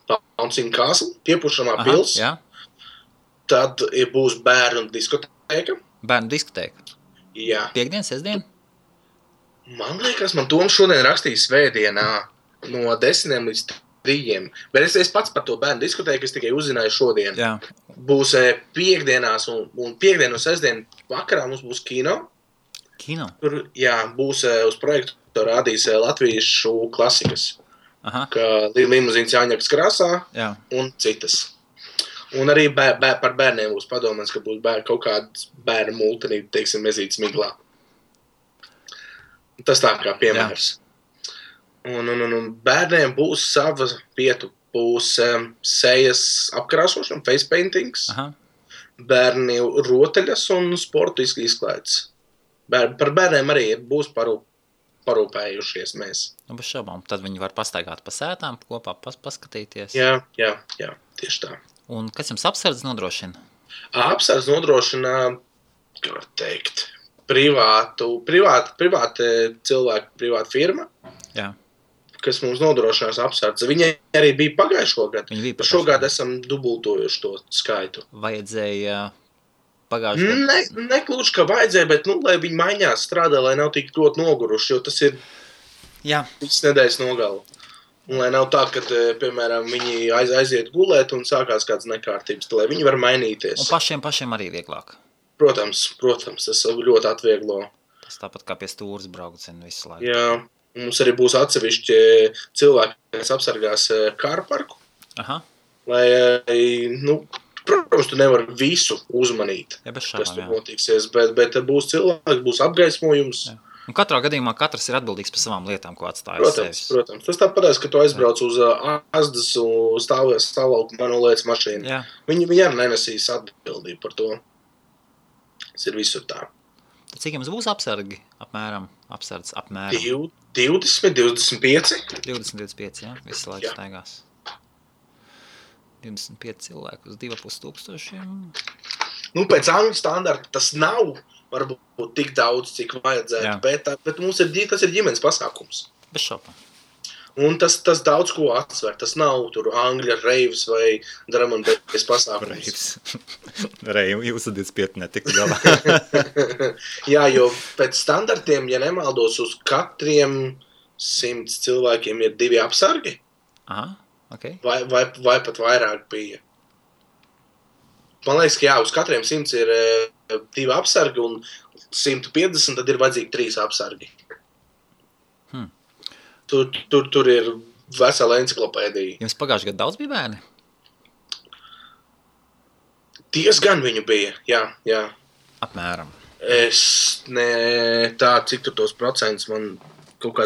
Bouncing Castle, piepušamā pils. Jā. Tad būs bērnu diskotēka. Bērnu diskotēka? Jā. Piektdien, sestdien? Man liekas, man Toms šodien rakstīja svētdienā no 10 līdz 3. Bet es pats par to bērnu diskotēku, es tikai uzzināju šodien. Jā. Būs piekdienās un piekdien un sestdien vakarā mums būs kino. Kino? Tur, jā, būs uz projektu rādīs latviešu klasikas. Kā Limuzīns Jāņakas krāsā un citas. Un arī par bērniem būs padomāts, ka būs kaut kāds bērnu multinība, teiksim, mezītas miglā. Tas tā kā piemērs. Un bērniem būs sava vieta, būs sejas apkrāsošana, face paintings, bērni rotaļas un sportu izklaides. Par bērniem arī būs parūpējušies mēs. Bez šaubām, tad viņi var pastaigāt pa sētām kopā, paskatīties. Jā, tieši tā. Un kas jums apsardz nodrošina? Apsardz nodrošina, kā var teikt, privāta cilvēku, privāta firma. Jā. Kas mums nodrošinās apsardzi. Viņi arī bija pagājušo gadu. Šogad esam dubultojuši to skaitu. Vajadzēja pagājušo gadu? Neklūši, ka vajadzēja, bet, lai viņi maiņās strādā, lai nav tik ļoti noguruši, jo tas ir viss nedēļas nogala. Un lai nav tā, ka, piemēram, viņi aiziet gulēt un sākās kādas nekārtības, lai viņi var mainīties. Un pašiem arī vieglāk? Protams, tas ļoti atvieglo. Tas tāpat kā pie stūras braucienu visu laiku. Jā. Mums arī būs atsevišķi cilvēki, kas apsargās kāru parku. Lai, protams, tu nevar visu uzmanīt, kas tur notiksies, bet būs cilvēki, būs apgaismojums. Jā. Un katrā gadījumā katrs ir atbildīgs par savām lietām, ko atstāja sevis. Protams. Tas tāpatās, ka tu aizbrauc uz Asdas un stāvlauku manolētas mašīnu. Jā. Viņi arī nenesīs atbildību par to. Tas ir visur tā. Tad cik jums būs apsargi? Apmēram? 20, 25. 20-25, jā? Visu laiku staigās. 25 cilvēku uz 2500. Pēc angļu standarta tas nav varbūt tik daudz, cik vajadzētu, bet mums tas ir ģimenes pasākums. Bez šaubām. Un tas daudz ko atsver. Tas nav tur angļa reivs vai drum and bass pasākums. Reivi, jūs 25 netika galā. Jā, jo pēc standartiem, ja nemaldos, uz katriem 100 cilvēkiem ir 2 apsargi. Okay. Vai pat vairāk bija. Man liekas, ka uz katriem 100 ir 2 apsargi un 150 tad ir vajadzīgi 3 apsargi. Tur ir vesela enciklopēdija. Jums pagājušajā gadā daudz bija bērni? Diezgan viņu bija, jā. Apmēram. Cik tur tos procentus man kaut kā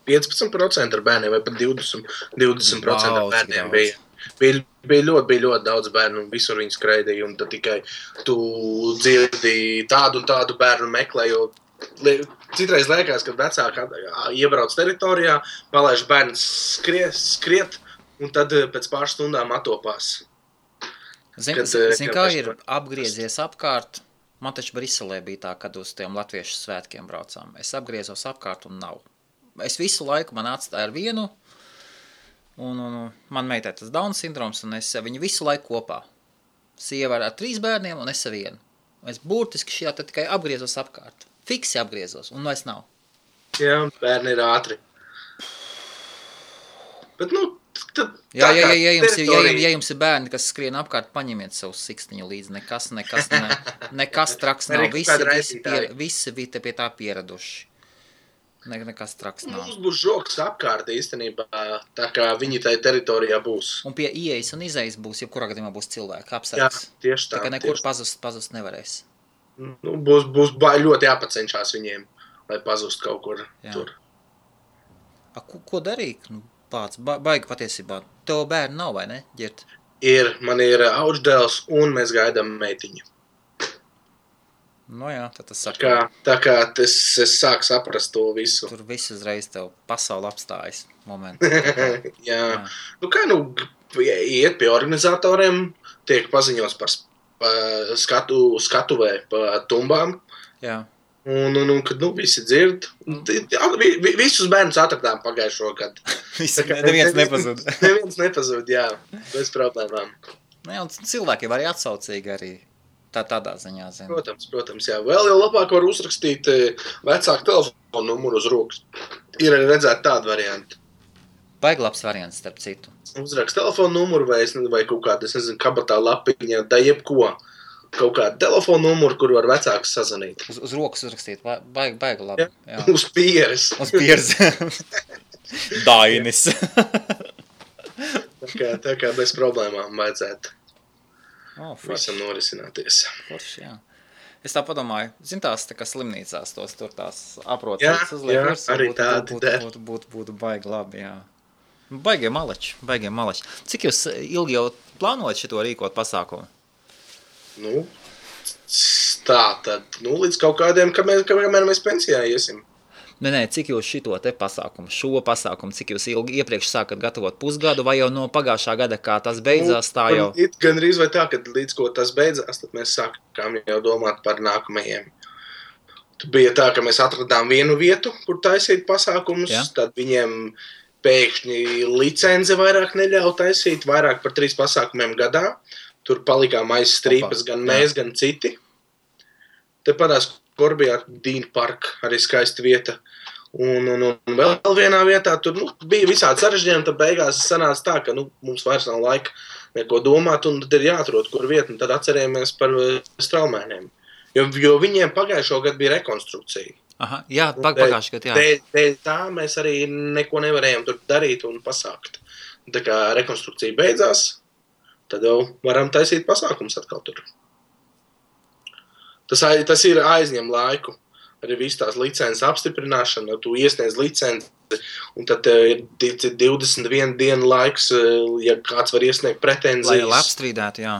15% ar bērniem vai pat 20% ar bērniem bija. Bija ļoti daudz bērnu un visur viņi skraidīja un tad tikai tu dzirdi tādu un tādu bērnu meklē, jo citreiz liekas, ka vecāki iebrauc teritorijā, palaiž bērns skriet un tad pēc pāris stundām atopās. Zin kā ir apgriezies apkārt? Man taču Briselē bija tā, kad uz tiem latviešu svētkiem braucām. Es apgriezos apkārt un nav. Es visu laiku man atstāju ar vienu un man meitai tas Down sindroms un es viņu visu laiku kopā. Sieva ar 3 bērniem un es ar vienu. Es burtiski šajā tad tikai apgriezos apkārt. Fiksi apgriezos, un vairs nav. Jā, bērni ir ātri. Bet, ja jums ir bērni, kas skrien apkārt, paņemiet savu sikstiņu līdzi. Nekas traks nav. Visi pie tā pieraduši. Nekas traks nav. Mums būs žoks apkārt īstenībā, tā kā viņi tai teritorijā būs. Un pie ieejas un izejas būs, jebkurā gadījumā būs cilvēki apsargs. Jā, tieši tā. Tā kā nekur pazust nevarēs. Nu, būs ļoti jāpacenšās viņiem, lai pazust kaut kur tur. Ko darīt? Nu, pats, baigi patiesībā. Tev bērni nav, vai ne, Ģirt? Man ir auģdēls un mēs gaidām meitiņu. Nu jā, tad tas tā kā es sāku saprast to visu. Tur viss uzreiz tev pasauli apstājas momentu. Jā. Nu kā, iet pie organizatoriem, tiek paziņots par skatuvē pa tumbām. Jā. Un kad visi dzird, visus bērnus atradām pagājušo gadu. Neviens nepazūd. Neviens nepazūd, jā, bez problēmām. Jā, un cilvēki var arī atsaucīgi arī. Tādā ziņā, zinu. Protams, jā. Vēl jau labāk var uzrakstīt vecāku telefonu numuru uz rokas. Ir arī redzēt tādu variantu. Baigi labs variants, starp citu. Uzrakst telefonu numuru vai kaut kādu, kabatā lapiņā, da jebko. Kaut kādu telefonu numuru, kur var vecākus sazvanīt. Uz rokas uzrakstīt, baigi labi. Jā. Uz pieres. Uz pieres. Dainis. tā kā bez problēmām vajadzētu. Visam norisināties. Forši, jā. Es tā padomāju, tās tā kā slimnīcās tur tās aprotas uzliek. Arī tādi būtu baigi labi, jā. Baigie maleči. Cik jūs ilgi jau plānojat šito rīkot pasākumu? Līdz kaut kādiem, kamēr mēs pensijā iesim. Nē, cik jūs šo pasākumu, cik jūs ilgi iepriekš sākat gatavot pusgadu, vai jau no pagājušā gada, kā tas beidzās, tā jau? Gan rīz vai tā, kad līdz ko tas beidzās, tad mēs sākām jau domāt par nākamajiem. Tad bija tā, ka mēs atradām vienu vietu, kur taisīt pasākumus, tad viņiem pēkšņi licence vairāk neļauj taisīt, vairāk par 3 pasākumiem gadā. Tur palikām aiz strīpas, gan mēs, gan citi. Te padās Korbijā Dīna parka, arī skaista vieta. Un vēl vienā vietā tur bija visādi sarežģījumi, tad beigās sanāca tā, ka mums vairs nav laika neko domāt, un tad ir jāatrod, kur vieta, un tad atcerējamies par straumēniem. Jo viņiem pagājušo gadu bija rekonstrukcija. Aha, jā, pagājušo gadu, jā. Dēļ tā mēs arī neko nevarējām tur darīt un pasākt. Tā kā rekonstrukcija beidzās, tad jau varam taisīt pasākums atkal tur. Tas ir aizņem laiku, arī viss tās licences apstiprināšana, tu iesniedz licenci, un tad ir 21 dienu laiks, ja kāds var iesniegt pretenzijas. Lai apstrīdētu, jā.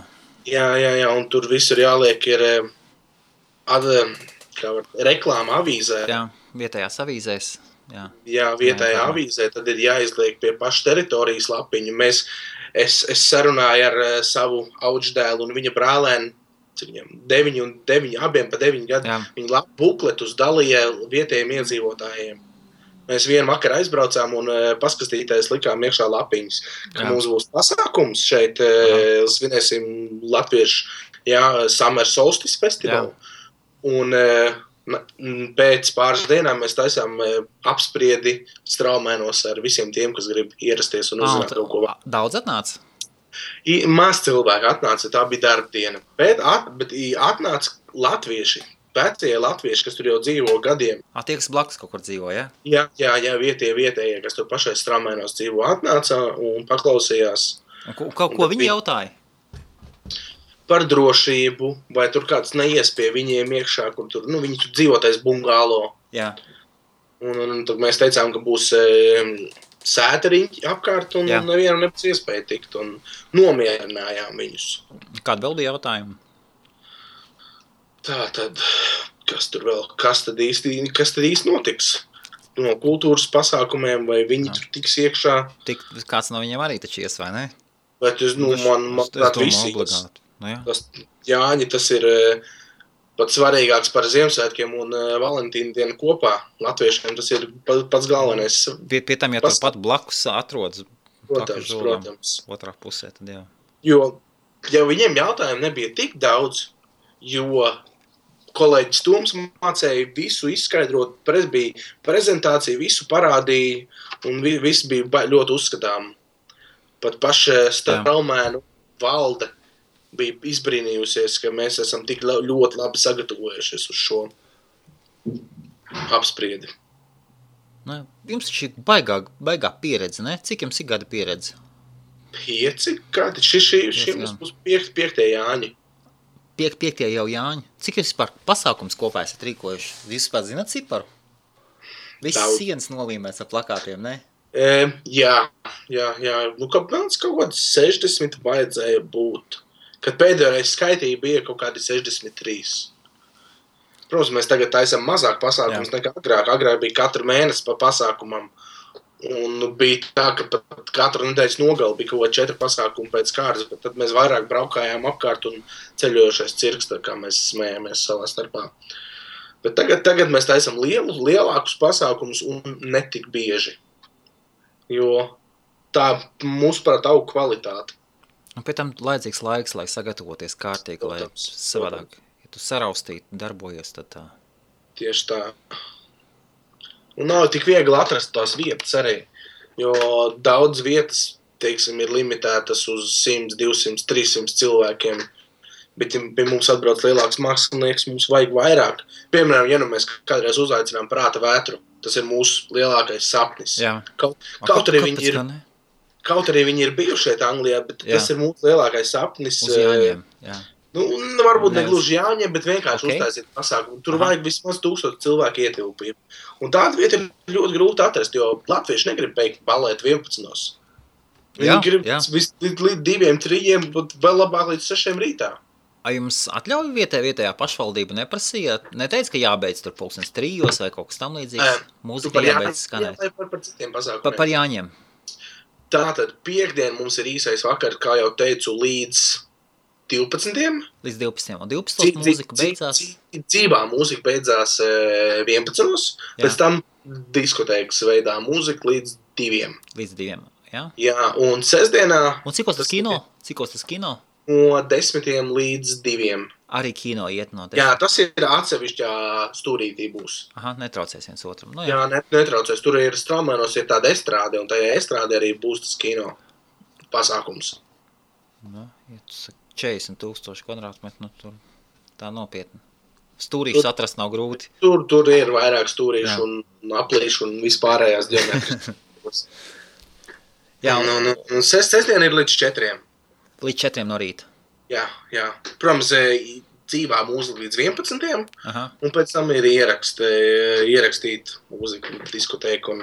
Jā, un tur visur jāliek ir reklāma avīzē. Jā, vietējās avīzēs. Jā, vietējā avīzē, tad ir jāizliek pie paša teritorijas lapiņu. Es sarunāju ar savu auģdēlu un viņa brālēnu, cik viņam 9, abiem pa 9 gadu, viņi bukletus dalīja vietējiem iedzīvotājiem. Mēs vienu vakaru aizbraucām un paskastīties likām iekšā lapiņas, ka mums būs pasākums šeit, svinēsim latviešu Summer Solstice festivālu. Un pēc pāris dienām mēs taisām apspriedi Straumēnos ar visiem tiem, kas grib ierasties un uzzināt kaut ko. Daudz atnāca? Maz cilvēki atnāca, tā bija darba diena. Bet atnāca latvieši, vecie latvieši, kas tur jau dzīvo gadiem. Tie, kas blakus kaut kur dzīvo, ja? Jā, vietējie, kas tur pašai Straumēnos dzīvo, atnāca un paklausījās. Ko viņi jautāja? Par drošību, vai tur kāds neies pie viņiem iekšā, kur tur, viņi tur dzīvotais bungālo. Jā. Un tad mēs teicām, ka būs sēteriņķi apkārt un nevienam nebūs iespēja tikt un nomierinājām viņus. Kāda vēl bija jautājuma? Tā tad, kas tad īsti notiks? No kultūras pasākumiem, vai viņi tur tiks iekšā? Kāds no viņiem arī taču ies, vai ne? Bet man visi. Jāņi, tas ir pat svarīgāks par Ziemassvētkiem un Valentīna dienu kopā. Latviešiem tas ir pats galvenais. Pie tam, ja turpat blakus atrodas protams. Otrā pusē, tad jā. Jo viņiem jautājumu nebija tik daudz, jo kolēģis Toms mācēja visu izskaidrot, bija prezentācija, visu parādīja, un viss bija ļoti uzskatām. Pat paša Straumēnu valde bija izbrīnījusies, ka mēs esam tik ļoti labi sagatavojušies uz šo apspriedi. Ne? Jums taču ir baigā pieredze, ne? Cik jums ir gada pieredze? 5 gadi. Šī mums 5. Jāņi. 5. jau Jāņi. Cik jūs vispār pasākums kopā esat rīkojuši? Jūs vispār zināt ciparu? Viss sienas nolīmēts ar plakātiem, ne? Jā. Nu, kāpēc kaut kāds 60 vajadzēja būt. Kad pēdējo reizi skaitīja bija kaut kādi 63. Protams, mēs tagad taisam mazāk pasākums nekā agrāk. Agrāk bija katru mēnesi pa pasākumam. Un bija tā, ka pat katru nedēļas nogali bija kaut 4 pasākumi pēc kārtas, bet tad mēs vairāk braukājām apkārt un ceļojušais cirks, tā kā mēs smējamies savā starpā. Bet tagad mēs taisam lielākus pasākumus un netik bieži. Jo tā mūsuprāt aug kvalitāte. Un pēc tam laidzīgs laiks, lai sagatavoties kārtīgi, lai savādāk. Ja tu saraustīt, darbojies, tad tā. Tieši tā. Un nav tik viegli atrast tās vietas arī, jo daudz vietas, teiksim, ir limitētas uz 100, 200, 300 cilvēkiem, bet ja pie mums atbrauc lielāks mākslinieks, mums vajag vairāk. Piemēram, ja nu mēs kādreiz uzaicinām Prāta vētru, tas ir mūsu lielākais sapnis. Jā. Kaut arī viņi ir bijuši šeit Anglijā, bet tas ir mūsu lielākais sapnis. Uz Jāņiem, jā. Nu, varbūt ne gluži Jāņiem, bet vienkārši uztaisīt pasākumu. Tur vajag vismaz 1000 cilvēku ietilpību. Un tāda vieta ir ļoti grūti atrast, jo latvieši negrib beigt balēt 11. Viņi grib līdz 2, 3, bet vēl labāk līdz 6 rītā. A jums atļauj vietējā pašvaldība neprasīja? Neteica, ka jābeidz tur 3 vai kaut kas tam līdzīgs? Mūzika jābeidz skanēt. Par citiem pasākumiem. Par Jāņiem. Tātad piekdien mums ir īsais vakar, kā jau teicu, līdz 12. Līdz 12. Un 12. mūzika beidzās? Dzīvā mūzika beidzās 11. Pēc tam diskotēkas veidā mūzika līdz 2. Līdz 2, jā? Jā, un sestdienā... Un cikos tas kino? No 10 līdz 2. Arī kino iet no 10. Jā, tas ir atsevišķā stūrītī būs. Aha, netraucēs viens otram. Nu, jā, netraucēs. Tur ir Straumēnos ir tāda estrāde, un tajā estrāde arī būs tas kino pasākums. Nu, ja tu saki 40,000 kvadrātmetru, nu tur tā nopietni. Stūrīšus atrast nav grūti. Tur ir vairāk stūrīšu un aplīšu un vispārējās ģeometras. Jā. Un sestdiena ir līdz 4. Līdz 4 no rīta. Jā. Protams, dzīvā mūzika līdz 11. Aha. Un pēc tam ir ierakstīt mūziku, diskotēku un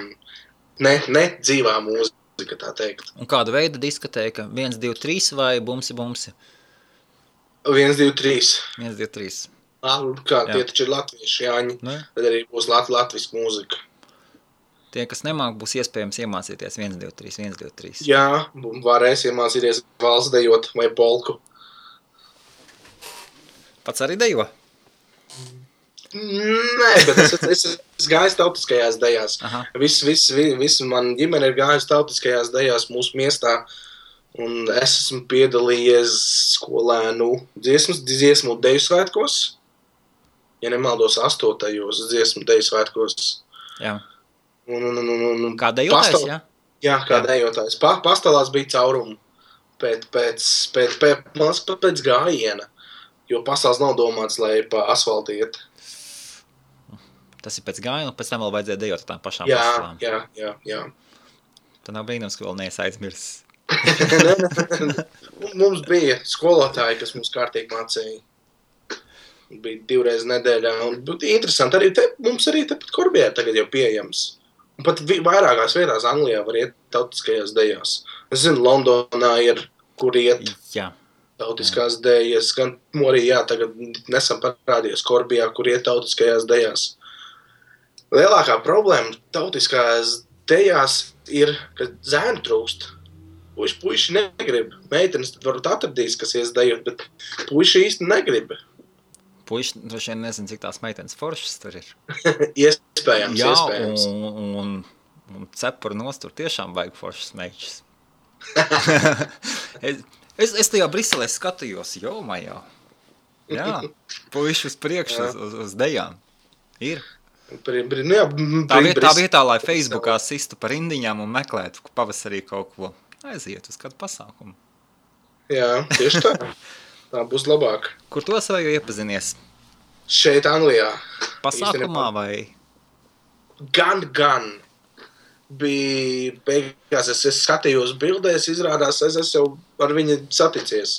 ne dzīvā mūzika, tā teikt. Un kāda veida diskotēka? 1, 2, 3 vai bumsi? 1, 2, 3. 1, 2, 3. Tie taču ir latvieši Jāņi, tad arī būs latviska mūzika. Tie, kas nemāk, būs iespējams iemācīties 1, 2, 3, 1, 2, 3. Jā, varēs iemācīties valsts dejot vai polku. Pats arī dejo? Nē, bet es gāju tautiskajās dejās. Viss man ģimene ir gājusi tautiskajās dejās mūsu miestā. Un es esmu piedalījies skolēnu dziesmu deju svētkos. Ja nemaldos 8. dziesmu deju svētkos. Jā. Un kā dejotājs, jā? Jā, kā dejotājs. Pastālās bija caurumu pēc gājiena, jo pastāls nav domāts, lai pa asfaltu iet. Tas ir pēc gājiena, un pēc tam vēl vajadzēja dejot tām pašām pastālām. Jā. Tad nav brīnums, ka vēl neesi aizmirsis. Mums bija skolotāji, kas mums kārtīgi mācīja. Bija 2 reizes nedēļā. Un interesanti, mums arī tepat Korbijā tagad jau pieejams. Un pat vairākās vietās Anglijā var iet tautiskajās dejās. Es zinu, Londonā ir, kur iet tautiskās dejas. Gan arī, tagad nesam parādījies Korbijā, kur iet tautiskajās dejās. Lielākā problēma tautiskajās dejās ir, ka zēnu trūkst. Puiši negrib. Meitenes tad varbūt atradīs, kas ies dejot, bet puiši īsti negrib. Puiši droši vien nezinu, cik tās meitenes foršas tur ir. Iespējams. Un cepuru nost tur tiešām vajag foršas meičas. es tajā Briselē skatījos, jau. Jā, puiši uz priekšu uz dejām. Ir. Tā vietā, lai Facebookā sistu par indiņām un meklētu pavasarī kaut ko. Aiziet uz kādu pasākumu. Jā, tieši tā. Tā būs labāk. Kur to savaju iepazinies? Šeit Anglijā. Pasākumā vai? Gan. bija beigās, es skatījos bildēs, izrādās, es esmu jau ar viņu saticies.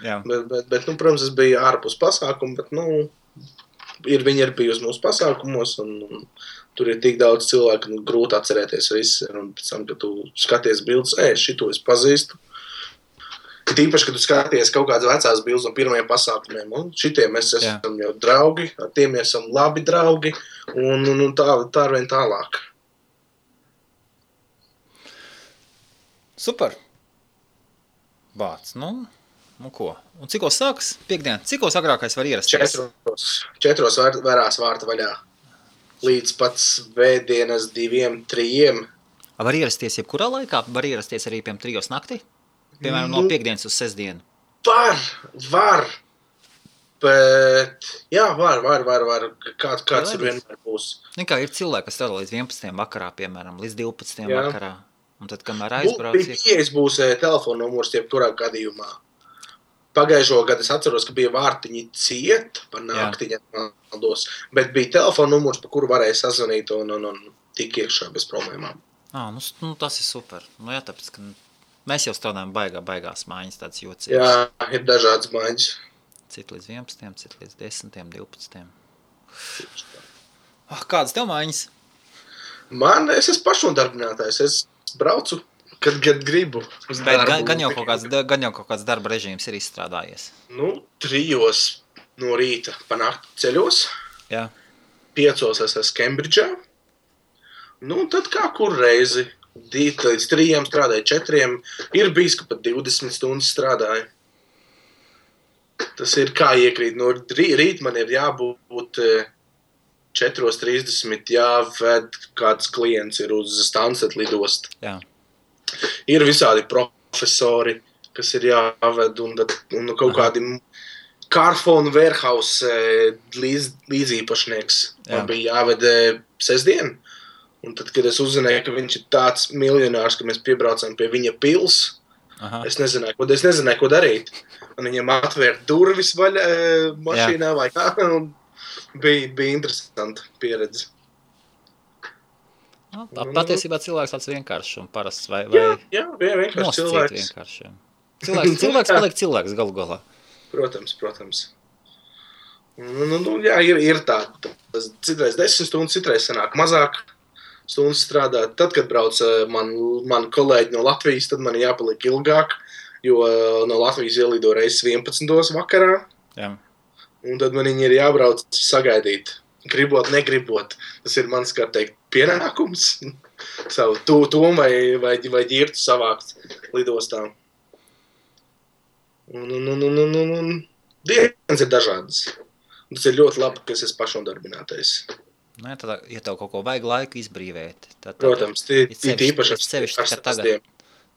Jā. Bet protams, es biju ārpus pasākumu, bet, viņi ir bijusi mūsu pasākumos, un tur ir tik daudz cilvēku, grūti atcerēties visu, un pēc tam, kad tu skaties bildes, šito es pazīstu. Tīpaši, kad tu skaties kaut kādas vecās bildes no pirmajiem pasākumiem, un šitiem mēs esam jau draugi, ar tiem mēs esam labi draugi, un tā arvien tālāk. Super. Bāc, ko? Un cikos sāks? Piektdien. Cikos agrākais var ierasties? 4 varās vārta vaļā. Līdz pat svētdienas 2-3. Var ierasties jebkurā laikā? Var ierasties arī piem 3 naktī? Piemēram, no piekdienas uz sestdienu. Var. Bet, jā, var. Kāds ir vienmēr būs. Kā ir cilvēki, kas strādā līdz 11. vakarā, piemēram, līdz 12. vakarā. Un tad, kamēr aizbrauc... Pieejas būs telefona numurs jebkurā gadījumā. Pagājušo gadu es atceros, ka bija vārtiņi ciet par naktiņa maldos, bet bija telefona numurs, pa kuru varēja sazvanīt un tik iekšā bez problēmām. Tas ir super. Jā, tāpēc, ka mēs jau strādājam baigās mājiņas, tāds jocīgs. Jā, ir dažādas mājiņas. Cit līdz 11, cit līdz 10, 12. Kādas tev mājiņas? Es esmu pašnodarbinātājs. Es braucu, kad gribu. Gan jau kaut kāds darba režīms ir izstrādājies. 3 no rīta pa nakti ceļos. Jā. 5 es esmu Kembridžā. Tad kā kur reizi. 2 līdz 3 strādāju, 4. Ir bijis, ka pat 20 stundas strādāju. Tas ir kā iekrīt. No rīt man ir jābūt 4:30 jāved kāds klients ir uz Stansted lidostu. Jā. Ir visādi profesori, kas ir jāved, un kaut kādi Carphone Warehouse līdzīpašnieks. Man bija jāved sestdien. Un tad, kad es uzzināju, ka viņš ir tāds miljonārs, ka mēs piebraucam pie viņa pils, es nezināju, ko darīt. Un viņam atvērt durvis vaļā mašīnā vai kā. Bija interesanta pieredze. Patiesībā cilvēks tāds vienkāršs un parasts vai jā, vienkārši cilvēks. Cilvēks paliek cilvēks galu galā. Protams. Jā, ir tā. Citreiz 10 stundas, citreiz sanāk mazāk stundas strādāt. Tad, kad brauc man kolēģi no Latvijas, tad man jāpaliek ilgāk, jo no Latvijas ielido reizes 11. vakarā. Jā. Un tad man viņi ir jābrauc sagaidīt. Gribot, negribot. Tas ir mans, kā teikt, pienākums. Savu tomu vai ģirtu savākt lidostā. Un dienas ir dažādas. Tas ir ļoti labi, ka es esmu pašnodarbinātais. Tad, ja tev kaut ko vajag laiku izbrīvēt, tad protams, īpaši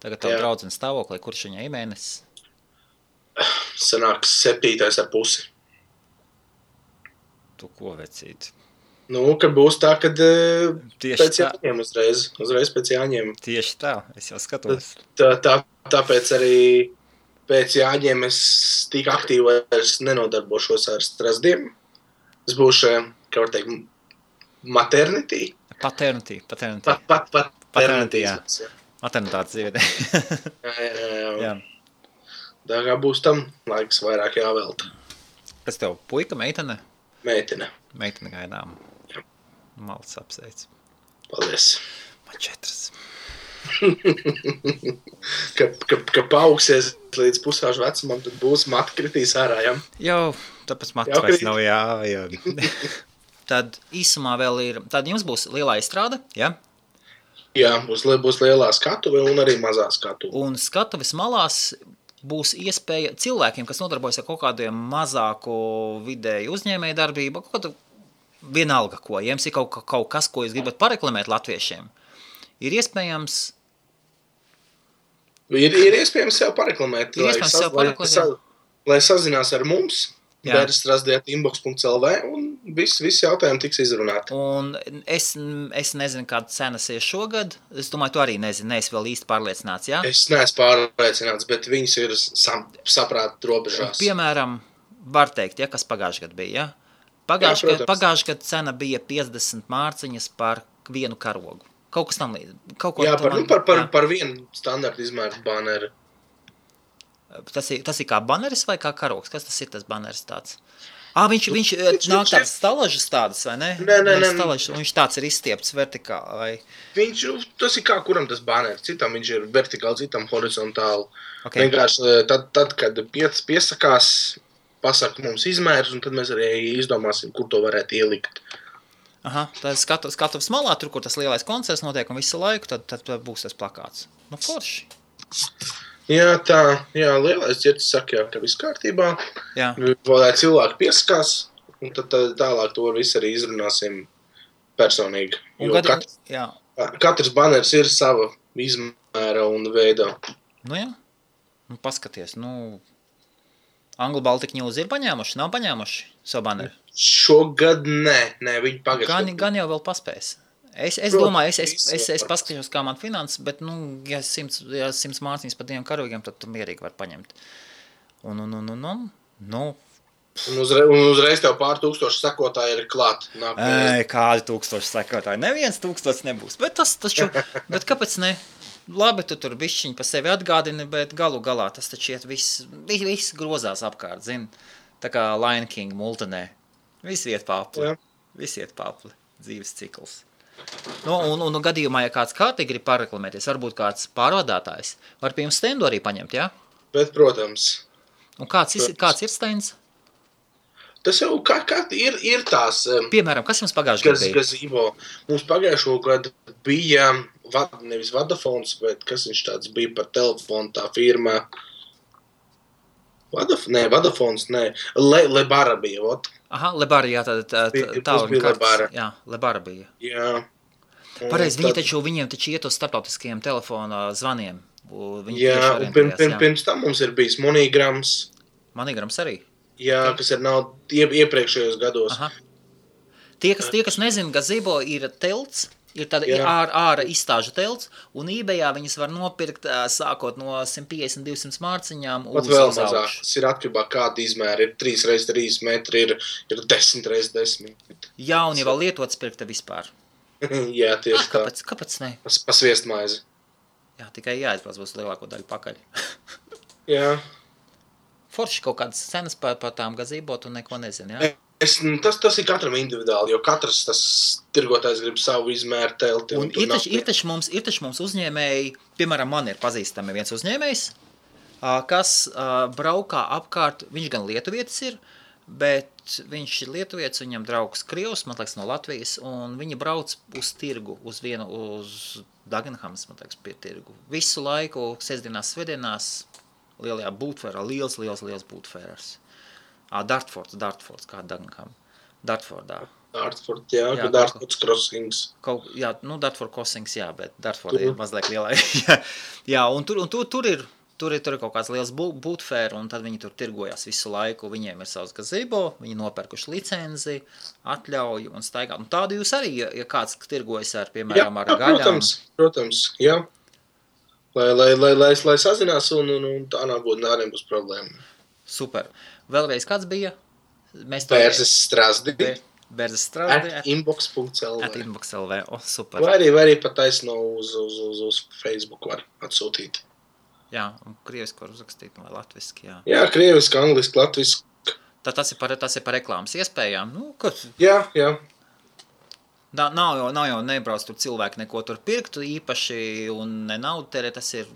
tagad tev draudzene stāvoklī, kurš viņai mēnesis? Sanāks 7,5. Tu ko vecīt? Kad būs tā, kad pēc jāņem uzreiz pēc jāņem. Tieši tā, es jau skatos. Tāpēc arī pēc jāņem es tik aktīvi nenodarbošos ar strasdiem. Es būšu, kā var teikt, maternity. Paternity. Paternity, jā. Maternitātes dzīvē. Jā. Tā kā būs tam laiks vairāk jāvelta. Kas tev, puika, meitene? Meitene gaidām. Jā. Malts apsveic. Paldies. Man 4. Ka paaugsies līdz pusaužu vecumam, tad būs mati kritīs ārā, jā? Jau, tāpēc mati vairs nav jāvajag. Tad īsumā vēl ir, tad jums būs lielā izstrāde, jā? Jā, būs lielā skatuve un arī mazā skatuve. Un skatuves malās būs iespēja cilvēkiem, kas nodarbojas ar kaut kādiem mazāku vidēju uzņēmēju darbību, kaut kādu vienalga ko, ja jums ir kaut kas, ko jūs gribat pareklamēt latviešiem, ir iespējams... Ir iespējams sev pareklamēt, lai sazinās ar mums, bērstrasdiet.inbox.lv un visi jautājumi tiks izrunāti. Un es nezinu, kāda cenas ir šogad. Es domāju, tu arī nezini, neesi vēl īsti pārliecināts, jā? Es neesmu pārliecināts, bet viņas ir saprāt robežās. Piemēram, var teikt, kas pagājušajā gadā bija, jā? Pagājušajā gadā cena bija 50 mārciņas par vienu karogu. Kaut kas tam līdz. Jā, par vienu standartu izmēru baneru. Tas ir kā baneris vai kā karoks? Kas tas ir, tas baneris tāds? Viņš nāk tāds stalažas tādas, vai ne? Nē. Stalažas, un viņš tāds ir izstiepts vertikāli, vai? Tas ir kā kuram tas baneris. Citam viņš ir vertikāli, citam horizontāli. Okay. Vienkārši tad kad piesakās, pasaka mums izmērs, un tad mēs arī izdomāsim, kur to varētu ielikt. Aha, tad skatu smalā, tur, kur tas lielais koncerts notiek un visu laiku, tad būs tas plakāts. Nu, forši. Jā, lielais ģertis saka, ka viss kārtībā. Jā. Lai cilvēki piesakās, un tad tālāk to visu arī izrunāsim personīgi. Katrs baneris ir sava izmēra un veidā. Nu jā, paskaties, Anglu Baltic News ir paņēmuši, nav paņēmuši savu baneri? Šogad nē, viņi pagājuši. Gan jau vēl paspēs. Es domāju, es paskatīšos, kā man finanses, bet, ja 100 mārciņas par 2 karavīgiem, tad tu mierīgi var paņemt. Un uzreiz tev pār 1000 sekotāji ir klāt. Kādi 1000 sekotāji? Neviens 1000 nebūs, bet bet kāpēc ne? Labi, tu tur bišķiņ pa sevi atgādini, bet galu galā tas taču iet viss grozās apkārt, zini? Tā kā Lion King multinē. Viss iet papli. Dzīves cikls. Un gadījumā, ja kāds kārtīgi grib pareklamēties, varbūt kāds pārvadātājs, var pie jums stendu arī paņemt, jā? Bet, protams. Un kāds ir stends? Tas jau ir tās... Piemēram, kas jums pagājušajā gadā bija? Gazīvo. Mums pagājušo gadu bija nevis Vodafons, bet kas viņš tāds bija par telefonu, tā firma... Vodafons, nē. Lebara bija, ot. Aha, Lebara, jā, jā, Lebara bija. Jā. Pareizi, viņiem taču iet uz starptautiskajiem telefona zvaniem. Jā, un pirms tam mums ir bijis Monograms. Monograms arī? Jā, kas ir nav iepriekšējos gados. Aha. Tie, kas nezina, gazebo ir telts, ir tāda ārā izstāžu telts, un eBayā viņas var nopirkt sākot no 150-200 mārciņām uz vēl mazāk. Tas ir atkarībā kāda izmēra. Ir 3x3 metri, ir 10x10. Jā, un ja vēl lietots pirkta vispār. Jā, tieši tā. Kāpēc ne? Pa sviestmaizi. Jā, tikai jāizbrauc būs lielāko daļu pakaļ. Jā. Forši kaut kādas cenas par tām gazebo, tu neko nezini, jā? Tas ir katram individuāli, jo katrs tas tirgotājs grib savu izmēru telti. Un ir taču mums uzņēmēji, piemēram, man ir pazīstami viens uzņēmējs, kas braukā apkārt, viņš gan lietuvietis ir, bet viņš ir lietuvietis, viņam draugs Krievs, man liekas, no Latvijas, un viņi brauc uz tirgu, uz Dagenhams, man liekas, pie tirgu. Visu laiku, sestdienās, svētdienās, lielajā būtfērā, liels būtfērās. Dartfords, kā Dagenham. Dartfordā. Dartford, jā, Dartfords crossings. Dartford crossings, jā, bet Dartford ir mazliet lielā. Jā, un tur ir kaut kāds liels būtfēra, un tad viņi tur tirgojās visu laiku. Viņiem ir savs gazebo, viņi nopērkuši licenzi, atļauju un staigā. Un tādu jūs arī, ja kāds tirgojas ar, piemēram, ar gaļām. Protams, jā. Lai sazinās un tā nebūs problēma. Super. Vēlreiz kāds bija? Bērzes Strasdi. Bērzes Strasdi. @inbox.lv. Super. Vai arī pat taisno uz Facebook var atsūtīt. Jā, un krieviski var uzrakstīt, vai latviski, jā. Jā, krieviski, angliski, latviski. Tad tas ir par reklāmas iespējām. Jā. Nav jau nebrauc tur cilvēki neko tur pirktu īpaši un ne naudu terē, tas ir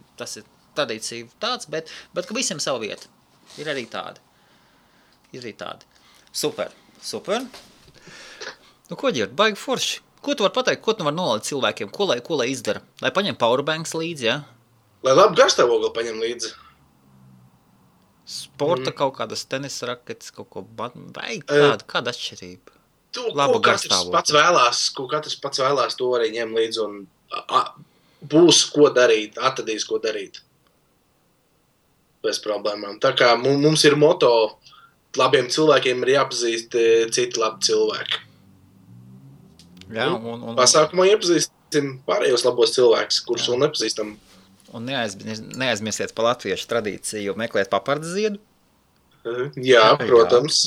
tradīcija tāds, bet ka visiem savu vietu. Ir arī tādi. Super. Ko ģirt, baigi forši. Ko tu var pateikt, ko tu var nolaikt cilvēkiem, ko lai izdara? Lai paņem powerbanks līdzi, jā? Lai labi garstāvokli paņem līdzi. Sporta kaut kādas tenisa raketes, kaut ko baigi kāda atšķirība. Ko katrs pats vēlās, to arī ņem līdzi un būs ko darīt, atradīs ko darīt. Bez problēmām. Tā kā mums ir moto, labiem cilvēkiem ir jāpazīst citi labi cilvēki. Jā, pasākumā iepazīstam pārējos labos cilvēkus, kurus vēl nepazīstam. Un neaizmirsiet par latviešu tradīciju, meklēt papardes ziedu. Jā, protams.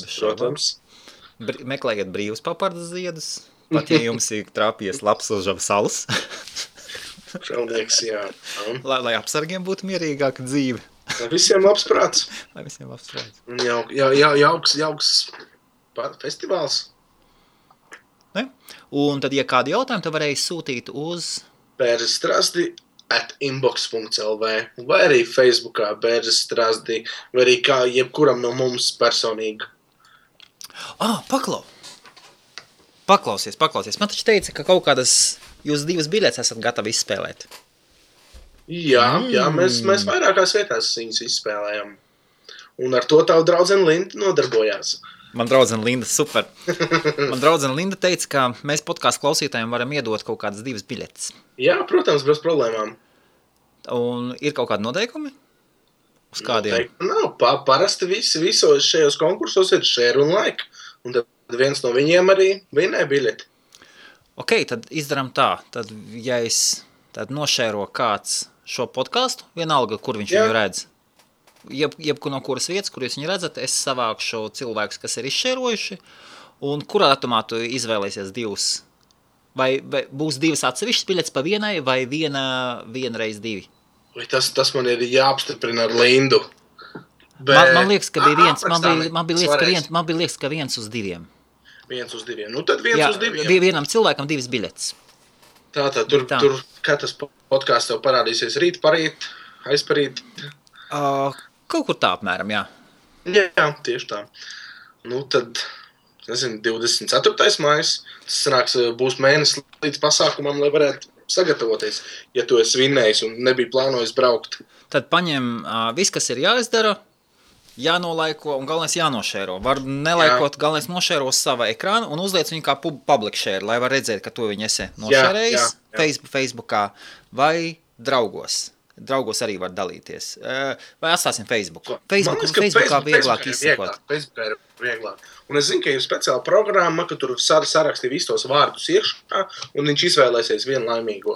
Meklējiet brīvus papardes ziedus. Pat ja jums ir trāpies labs uz žabu salas. Šaunieks, jā. Lai apsargiem būtu mierīgāka dzīve. Lai visiem labs prāts. Lai visiem labs prāts. Jauks festivāls. Ne? Un tad, ja kādi jautājumi, tad varēja sūtīt uz... bērzestrasdi@inbox.lv vai arī Facebookā bērzestrasdi, vai arī kā jebkuram no mums personīgi. Paklausies. Man taču teica, ka kaut kādas jūs 2 biļetes esat gatavi izspēlēt. Jā, mēs vairākās vietās viņus izspēlējam. Un ar to tavu draudzene Linda nodarbojās. Man draudzene Linda, super. Man draudzene Linda teica, ka mēs podcastu klausītājiem varam iedot kaut kādas 2 biļetes. Jā, protams, bez problēmām. Un ir kaut kādi noteikumi? Uz kādiem? Nav. Parasti visos šajos konkursos ir share un like. Un tad viens no viņiem arī vinē biļeti. Ok, tad izdaram tā. Tad, ja es nošēro kāds šo podcastu, vienalga, kur viņš viņu redz, jebkur no kuras vietas, kur jūs viņu redzat, es savākšu cilvēkus, kas ir izšērojuši, un kurā datumā tu izvēlēsies 2? Vai būs 2 atsevišķas biļetes pa vienai, vai viena reiz 2? Vai tas man ir jāapstiprina ar Lindu. Man liekas, ka bija viens, man bija liekas, ka 1 uz 2. 1 uz 2. Nu tad 1 uz 2. Bija vienam cilvēkam 2 biļetes. Tātad, tur kā tas podcasts tev parādīsies rīt, parīt, aizparīt? Kaut kur tā apmēram, jā. Jā, tieši tā. Nu tad, 24. maijs, tas sanāks, būs mēnesis līdz pasākumam, lai varētu sagatavoties, ja tu esi vinnējis un nebija plānojis braukt. Tad paņem viss, kas ir jāizdara, jānolaiko un galvenais jānošēro. Var nelaikot, galvenais nošēro uz sava ekrāna un uzliec viņu kā public share, lai var redzēt, ka to viņi esi nošērējis Facebookā vai draugos. Draugos arī var dalīties. Vai atstāsim Facebooku? Facebookā vieglāk izsakot. Facebookā ir vieglāk. Un es zinu, ka ir speciāla programma, ka tur sarakstī visus tos vārdus iekšā, un viņš izvēlēsies vienu laimīgo.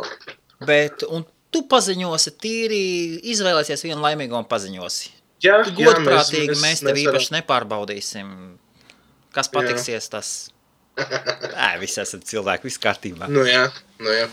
Un tu paziņosi tīri, izvēlēsies vienu laimīgo un paziņosi. Jā, godprātīgi mēs tev īpaši nepārbaudīsim. Kas patiksies, tas... Visi esat cilvēki, viss kārtībā. Nu jā,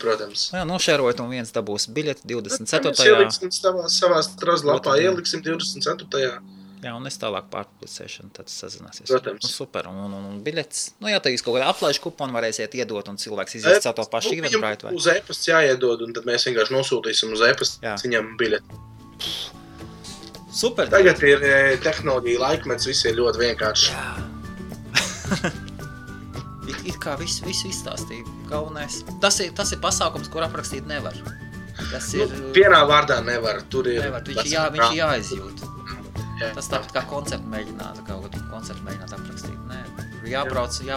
protams. Jā, nošērojot un viens dabūs biļeti 24. Mēs ieliksim savā strazlapā, ieliksim 24. Jā, un es tālāk pārpublicēšanu, tad sazināsies. Protams. Nu, super, un biļetes. Nu, jā, tad jūs kaut kādā aplaišu kuponu varēsiet iedot, un cilvēks izies caur to pašu Eventbrite vai? Uz e-pasts jāiedod, un tad mēs vienkārši nosūtīsim uz e-pasts viņam biļeti. Super. Tagad ir tehnoloģija laikmets, viss ir ļoti vienkārši. Jā. It kā visu izstāstīja galvenais. Tas ir pasākums, kur aprakstīt nevar. Tas ir... Vienā vārdā nevar. Tur ir... Nevar, viņš ir jāizjūt. Jā. Tas tāpat kā koncertu mēģināt aprakstīt. Nē, jābrauc un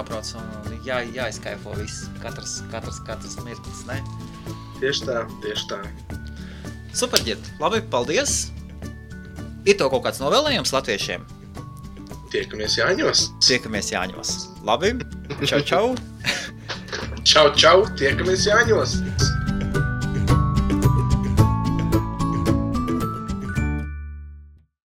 jāizkaifo viss. Katrs mirklis, ne? Tieši tā. Super, Ģirt. Labi, paldies. Ir tev kaut kāds novēlējums latviešiem? Tiekamies Jāņos. Labi. Čau. Čau. Tiekamies Jāņos.